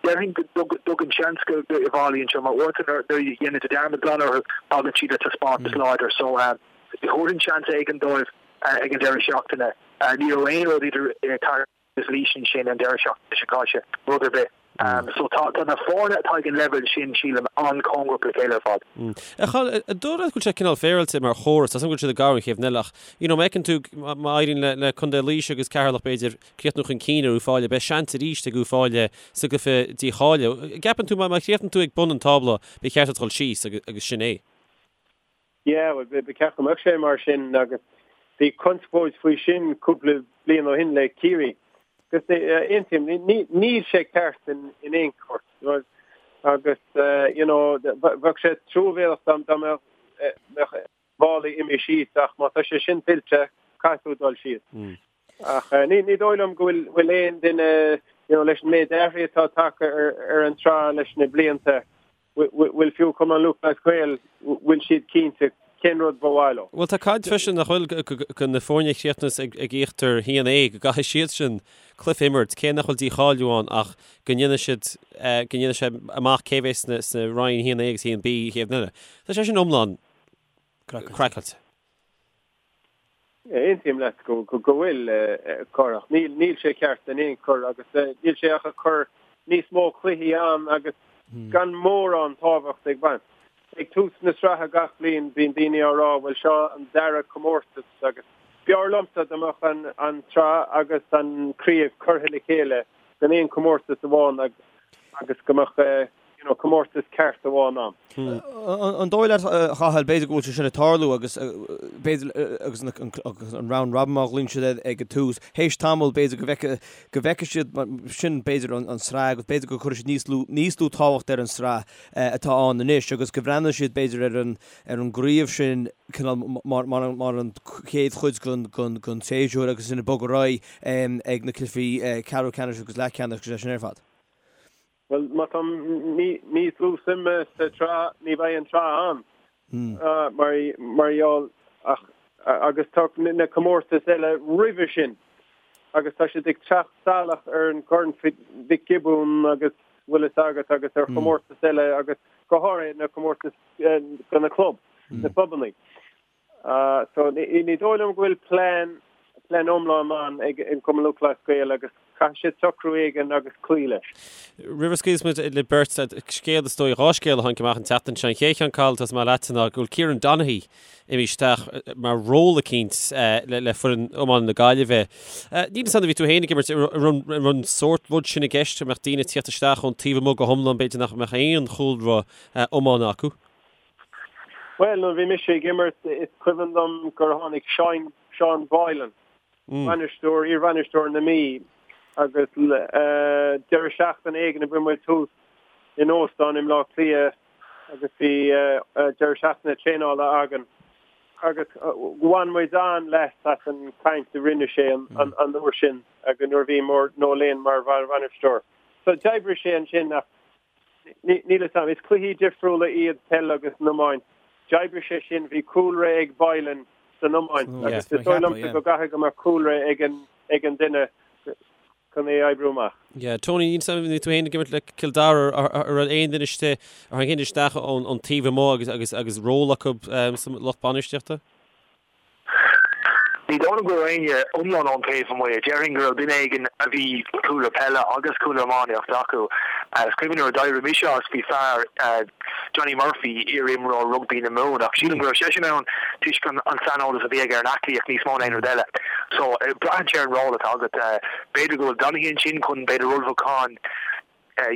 Déarfainn go dtugann seans do Uíbh Fhailí anseo mar uaireanta nuair a dhéanann tú dearmad glan orthu tagann siad le taispeántas láidir so thabharfainn seans éigin dóibh ag an deireadh seachtaine. Ní raibh aon rud idir Ceatharlach agus Laois ansin an deireadh seachtaine seo caite, rud ar bith. So tá na foirne atá ag an leibhéal sin, sílim, an-chóngarach le chéile ar fad. A Chathail, an dóigh leat go bhfuil sé cineál féaráilte mar chóras? Tá 's agam go bhfuil siad ag gabháil an chéad bhliain eile ach, you know, má fheiceann tú, má éiríonn le, le Contae Laoise agus Ceatharlach b'fhéidir críochnú chun cinn ar Uíbh Fhailí, beidh seans arís ag Uíbh Fhailí sa gcluiche dícháilithe. An gceapann tú má, má chríochnaíonn tú ag bun an tábla, ba cheart duit dul síos agus, agus sin é? Yeah, bhuel, ba cheart go mbeadh sé mar sin agus bhí conspóid faoi sin cúpla bliain ó shin le Ciarraí. Agus aontaím, níl sé ceart in aon chor. Agus, you know, bheadh sé truamhéalach dá mbeadh Uíbh Fhailí imithe síos ach má tá sé sin tuillte, caithfidh tú dul síos. Ach ní dóigh liom go bhfuil aon duine, you know, leis an méid athraithe atá tagtha ar an tsraith leis na blianta, bhfuil fiú Cumann Lúthchleas Gael, bhfuil siad cinnte cén rud ba mhaith leo. Bhuel tá caint freisin nach bhfuil go na foirne a chríochnas ag íochtar 1A go gcaithfidh siad sin cluiche a imirt, cé nach bhfuil dícháiliú ann ach go ndéanfaidh siad, go ndéanfaidh sé amach cé bheas sna sna roinn 1A agus 1B an chéad bhliain eile. Tá sé sin iomlán craiceáilte. Aontaím leat go bhfuil corrach. Níl sé ceart in aon chor agus níl sé ach ag cur níos mó cluichí ann agus gan mórán tábhacht ag baint. Ag tús na sraithe gach bliain bíonn daoine á rá bhuel seo an dara comórtas agus b'fhearr liomsa dá mbeadh an tsraith agus an craobh curtha le chéile in aon chomórtas amháin agus go mbeadh you know, comórtas ceart amháin ann. An dóigh leat, a Chathail, b'fhéidir go bhfuil sé sin ag tarlú agus b'fhéidir agus an round robin mar a ghlaonn siad air ag an tús, théis tamaill b'fhéidir go bhfeicfidh go bhfeicfidh siad sin b'fhéidir an tsraith agus b'fhéidir go gcuirfidh siad níos lú níos lú tábhacht ar an tsraith atá ann anois agus go mbreathnóidh siad b'fhéidir ar an ar an gcraobh sin cineál mar mar mar an chéad chuid den den den tséasúr agus sin ag bogadh ar aghaidh ag na cluichí ceathrú ceannais agus leathcheannais agus é sin ar fad. Bhuel, má tá níos lú suime sa tsraith, ní bheidh an tsraith ann, mar gheall, ach, agus tá na comórtais eile roimhe sin, agus tá siad ag teacht salach ar an gCorn Mhic Giobúin agus bhfuil fhios agat agus ar chomórtais eile agus go háirithe na comórtais do na club, na clubanna. So ní dóigh liom go bhfuil plean, plean iomlán ann ag an Cumann Lúthchleas Gael agus caithfidh siad socrú éigin agus cloí leis. Roimh a scaoilfeas muid libh beirt, scéal is dóigh, 2 scéal a tháinig amach an tseachtain seo. An chéad cheann, Cathal, tosóidh mé leatsa ná go bhfuil Kieran Donaghy imithe isteach mar ról eicínt le foireann iomána na Gaillimhe. Níl fhios agam nuair a bhí tú féin ag imirt, an raibh an sórt rud sin i gceist, go mbeadh daoine ag tíocht isteach ón taobh amuigh go hiomlán, b'fhéidir nach mbeadh aon chúlra iomána acu? Bhuel, nuair a bhí mise ag imirt, is cuimhin liom gur tháinig Seán, Seán Boylan, bainisteoir, iar-bhainisteoir na Mí, agus deireadh seachtaine éigin a bhí muid thuas in óstán i mBleá Cliath agus bhí deireadh seachtaine traenála againn agus bhain muid an-leas as an chaint a rinne sé an uair sin agus nuair a bhí Noel Lane mar bhainisteoir. So d'oibrigh sé ansin ach Níl fhios a'm. Is cluichí difriúla iad peil agus an iomáint. D'oibrigh sé sin, bhí cúlra ag Boylan san iomáint agus is dóigh liomsa go gcaithfidh go mbeadh cúlra ag an ag an duine chun é a oibriú amach. Yeah, Tony, níl fhios a'm, bhí tú féin ag imirt le Cill Dara, an raibh aon duine istigh, ar tháinig aon duine isteach ón taobh amuigh agus agus agus ról acu sa lucht bainistíochta? Ní dóigh liom go raibh éinne iomlán ón taobh amuigh. Déarfainn go raibh duine éigin a bhí cúlra peile agus cúlra iománaíochta acu. Is cuimhin nuair a d'éirigh mise as, bhí fear, Johnny Murphy, iar-imreoir rugbaí na Mumhan, ach sílim go raibh seisean ann toisc an saineolas a bhí aige ar an aclaíocht níos mó ná aon rud eile. So, braitheann sé ar an ról atá agat. B'fhéidir go bhfuil Donaghy ansin chun, b'fhéidir, ullmhúchán,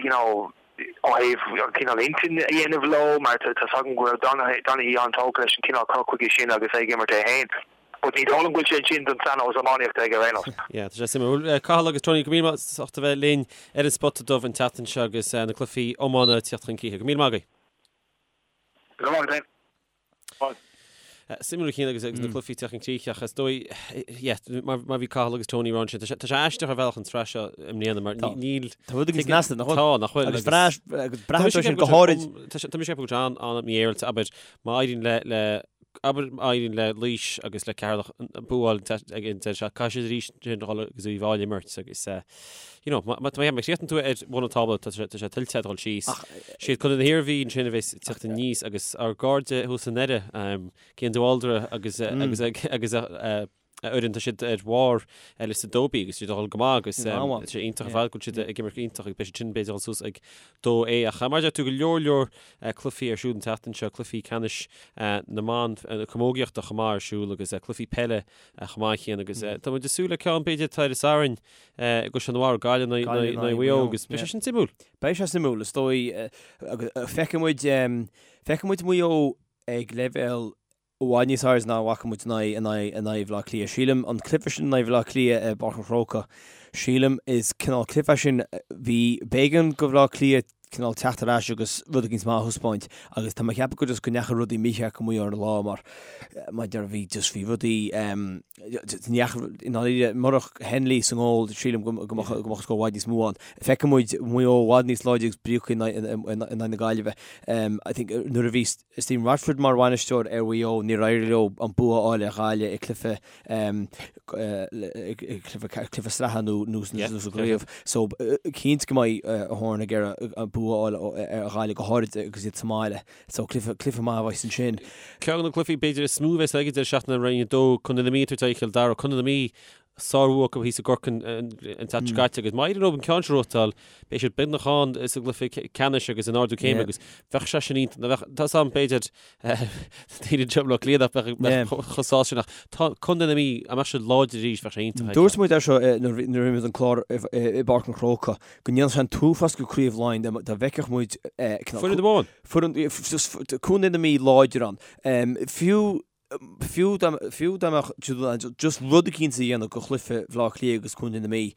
you know, ó thaobh an cineál intinn a dhéanamh leo, mar tá 's agam go raibh Donaghy an-tógtha leis an cineál cur chuige sin agus é ag imirt é féin. But ní dóigh liom go bhfuil sé ansin don saineolas iománaíochta aige ar aon nós. Yeah, tá sé suimiúil. Bhuel, Cathal agus Tony, go raibh míle maith as ucht a bheith linn ar an Spota Dubh an tseachtain seo agus na cluichí iomána ag tíocht chun críche. Go raibh míle maith agaibh. Go raibh maith agat féin. Suimiúil a Chian agus na cluichí ag tíocht chun críche ach is dóigh, yeah, mar mar bhí Cathal agus Tony ag rá ansin, tá sé tá sé aisteach ar bhealach an tsraith seo i mbliana mar Tá. níl Tá rud éigin snasta, nach bhfuil? Tá, nach bhfuil? Agus breá agus braitheann sé sin go háirid. Tá sé tá mise ag ceapadh go bhfuil sé an-mhífhéaráilte, abair, má éiríonn le le. Abair má éiríonn le Laois agus le Ceatharlach bua a fháil ag an deireadh seachtaine, caithfidh siad arís ansin a dhul agus Uíbh Fhailí a imirt agus you know, má chríochnaíonn tú ar bhun an tábla tá sé tá sé tuillte a dhul síos. Siad Contae na hIarmhí ansin a bheas ag teacht aníos agus ár gcairde thuas i nDoire, Cian de Bhaldraithe agus agus agus a a fhoireann, tá siad ar bharr liosta 2B agus siad ag dul go maith agus tá sé iontach ar fad go bhfuil siad ag imirt go iontach agus beidh siad sin b'fhéidir ag dul suas ag 2A ach mar a deir tú go leor leor cluichí ar siúl an tseachtain seo, cluichí ceannais na mban camógaíochta chomh maith ar siúl agus cluichí peile chomh maith chéanna agus tá muid ag súil le ceann b'fhéidir atá ar an Satharn i gCaisleán an Bharraigh, Gaillimh in aghaidh Mhaigh Eo agus beidh sé sin suimiúil. Beidh sé suimiúil is dóigh agus feicfidh muid feicfidh muid Maigh Eo ag leibhéal i bhfad níos airde ná a bhfaca muid in aghaidh in aghaidh in aghaidh Bhaile Átha Cliath. Sílim, an cluiche sin in aghaidh Bhaile Átha Cliath i bPáirc an Chrócaigh, sílim, is cineál cluiche é sin, bhí, b'éigean do Bhaile Átha Cliath cineál teacht ar ais agus rud éicint maith a thaispeáint agus tá mé ag ceapadh go just go ndeachaigh rudaí mícheart go Maigh Eo ar an lá mar mar deir bhí just bhí rudaí ní dheachaigh i ndáiríre murach Henley sa ngól sílim go go mbeadh go mbeadh scór i bhfad níos mó ann. Feicfidh muid Maigh Eo i bhfad níos láidre agus bríocha in aghaidh in aghaidh na Gaillimhe. I think nuair a bhí Stephen Rochford mar bhainisteoir ar Mhaigh Eo, níor éirigh leo an bua a fháil ar Ghaillimh i gcluiche cluiche sraithe nó nó sa gcraobh. So cinnte go mbeidh Horan ag iarraidh an bua a fháil ar Ghaillimh go háirid agus iad sa mbaile. So cluiche cluiche maith a bheas ansin. Ceann de na cluichí b'fhéidir is mó a bheas ag an deireadh seachtaine Roinn 2, Contae na Mí ag tabhairt aghaidh ar Chill Dara. Contae na Mí sárbhua acu thíos i gCorcaigh an tseachtain seo caite agus má éiríonn leo an ceann seo a ghnóthachtáil, beidh siad beagnach ann sa gcluiche ceannais agus in ardú céime agus bheadh sé sin iontach, bheadh, tá 's agam b'fhéidir daoine anseo i mBaile Átha Cliath nach mbeadh chomh sásta sin ach tá Contae na Mí, dá mbeadh siad láidir arís bheadh sé iontach. Dúirt muid é seo nuair a rinne muid an clár i bPáirc an Chrócaigh go ndéanfadh sé an t-uafás go Craobh Laighean dá bhfeicfeadh muid Foireann amháin. Foireann, Contae na Mí láidir ann. Fiú Fiú dá fiú dá mbeadh just rud eicínt a dhéanamh go chluiche Bhaile Átha Cliath agus Contae na Mí,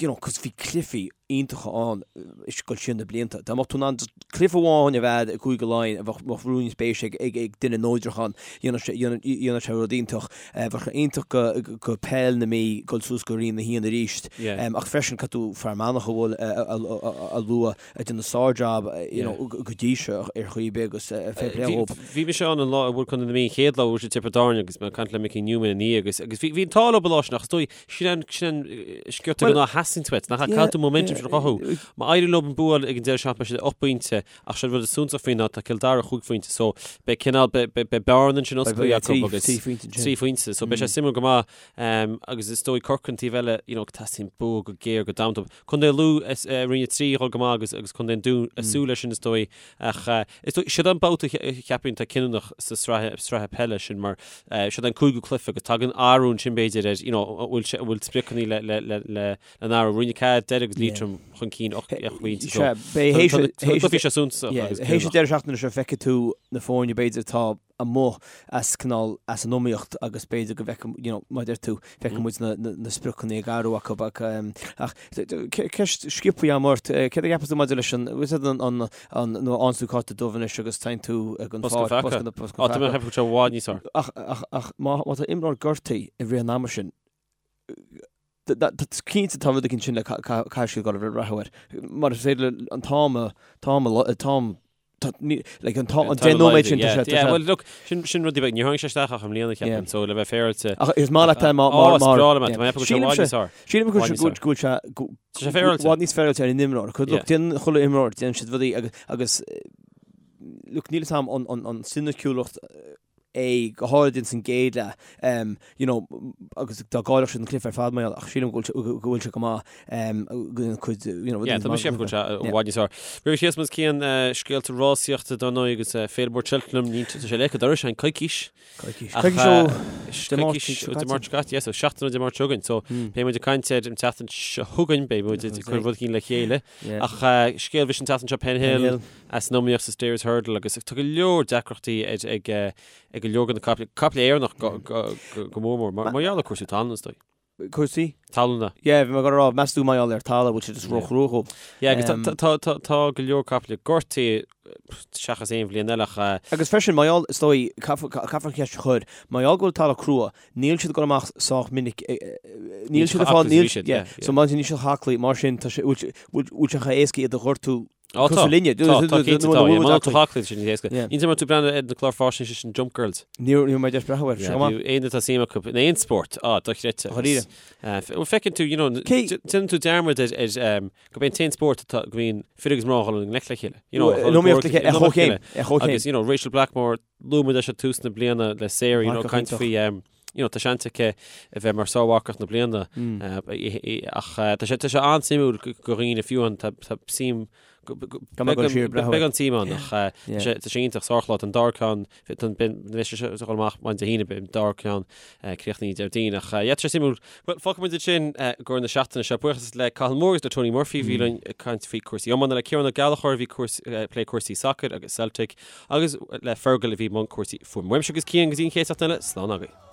you know, cos bhí cluichí iontacha ann ag dul siar na blianta. Dá mbeadh tú in ann just cluiche amháin a bheith i gCúige Laighean a bheadh bheadh rún spéise ag ag ag duine neodrach ann, dhéanfadh sé dhéanfadh sé rud iontach. Bheadh sé iontach go go peil na Mí dul suas go Roinn 1 arís. Ach freisin caithfidh tú Fear Manach a bhfuil a a lua. ag déanamh sár-jab you know go dtí seo ar chaoi ar bith agus fair play dhób. Bhí mise ann an lá a bhuail Contae na Mí an chéad lá a bhuail siad Tiobraid Árann agus mé ag caint le Mickey Newman ina dhiaidh agus agus bhí bhí an t-ádh leo an lá sin ach is dóigh sin an sin an sciorta go ná theastaíonn uait nach caithfidh tú momentum sin a chothú. Má éiríonn leo an bua ag an deireadh seachtaine beidh siad 8 bpointe ach sé an rud is suntasach faoi ná tá Cill Dara 5 phointe so beidh cineál beidh beidh bearna ansin osclaithe acu agus 3 phointe so beidh sé suimiúil go maith agus is dóigh Corcaigh an taobh eile you know teastaíonn bua go géar go damanta. Contae Lú i Roinn 3 a dhul go maith agus agus Contae an Dúin ag súil leis sin is dóigh ach is dóigh siod an babhta a cheapfainn atá cinniúnach sa sraith sraithe peile sin mar siod an cúigiú cluiche agus tagann athrú ansin b'fhéidir ar you know an bhfuil sé an bhfuil spriocanna le le le le le n-athrú Roinn 4 Doire agus Liatroim chun cinn 8 pointe so tá na cluichí seo suntasach agus Théis an deireadh seachtaine seo feicfidh tú na foirne b'fhéidir atá amuigh as cineál as an iomaíocht agus b'fhéidir go bhfeicfidh you know mar a deir tú feicfidh muid na na na spriocanna ag athrú acu ach ach ceist sciobtha agam ort céard a cheapas tú maidir leis an bhfuil an an an nuair a fhaigheann tú cárta dubh anois agus téann tú ag an Bosca pháirc feaca. bosca Á tá mé ag ceapadh go bhfuil sé i bhfad níos fearr. Ach ach ach má má tá imreoir gortaithe i rith an ama sin cinnte tá rud éicint sin le caithfidh siad dul ag breathnú air mar is féidir le an t-am a t-am a t-am like an t-am an 10 nóiméad sin tá sé Yeah, well look, sin sin rudaí beag, níor tháinig sé isteach ach i mbliana ceapaim, so le bheith féaráilte. Ach is maith leat é má mar mar Ó, is breá liom é, tá mé ag ceapadh go bhfuil sé i bhfad níos fearr. Sílim go bhfuil sé go Tá sé féaráilte. i bhfad níos féaráilte ar an imreoir. Look, déanann chuile imreoir, déanann siad rudaí agus agus look, níl 'fhios a'm an an an soiniciúlacht é, go háirid ins an gcéad leath, you know, agus dá gcaillfeadh siad an cluiche ar fad mar gheall, ach sílim go bhfuil go bhfuil sé go maith, go bhfuil cuid, you know, Yeah, tá mise ag ceapadh go bhfuil sé i bhfad níos fearr. Roimh Chríosmas Cian, scéalta rásaíochta dar ndóigh agus Féile Mhór Cheltenham, ní, tá sé léithe dorais an coicís. Coicís. Coicís ó Dé Máirt seo caite. Dé Máirt seo caite, yes, so seachtain ó Dé Máirt seo chugainn. So beidh muid ag caint air an tseachtain seo chugainn, beidh muid ag cur rud éicint le chéile. Ach scéal bhris an tseachtain seo Penhill, as an iomaíocht sa Stayers Hurdle agus tá go leor deacrachtaí ag ag go leor de na caiple, caiple Éireannach go go mór mór, mar gheall ar cúrsaí talún is dóigh. Cúrsaí? Talúna. Yeah, bhí mé ag dul a rá, meas tú mar gheall ar talamh, bhfuil sé just ró-chrua dhóibh? Yeah, agus tá tá tá tá go leor caiple gortaithe seachas aon bhliain eile ach. Agus freisin, mar gheall, is dóigh, caithfear an cheist a chur, mar gheall go bhfuil talamh crua, níl siad ag dul amach sách minic, níl siad ag fáil, níl, yeah, so mar sin níl siad chomh haclaí, mar sin tá sé, bhfuil sé chomh héasca iad a ghortú. Á tá, Cosúil linne. tá, tá cinnte tá, yeah, má tá aclaí sin ní éasca. Yeah. Ní mar tú breathnú ar na cláir faisnéise sin Jump Girls. Ní raibh mé deis breathnú air, seo go maith. Bhí aon atá suim acu in aon spórt, á, dochreidte. Dháiríre. Bhuel, feiceann tú, you know, déanann tú dearmad ar, ar, um, go b'é an t-aon spórt atá, go mbíonn fir agus mná ag dul i ngleic le chéile. You know, In iomaíocht le chéile, ar chomhchéim, ar chomhchéim. Agus, you know, Rachel Blackmore, luaigh muid leis ag tús na bliana le Sarah, you know, caint faoi, um, you know, tá seans aici a bheith mar sármharcach na bliana ach tá sé tá sé an-suimiúil do dhaoine fiú an tá suim beag an tsuim ann ach tá sé iontach sárchlár an dara ceann beidh sé ag dul amach maidin Dé hAoine beidh an dara ceann críochnaithe Déardaoin ach yeah tá sé suimiúil. Bhuel fágfaidh muid ansin i gcomhair na seachtaine seo. Buíochas le Cathal Moore agus le Tony Murphy a bhí linn ag caint faoi cúrsaí iomána le Ciarán Ó Gallchóir a bhí ag plé cúrsaí sacair agus Celtic agus le Fergal a bhí i mbun cúrsaí fuaime. Uaimse agus Cian go dtí an chéad seachtain eile, slán agaibh.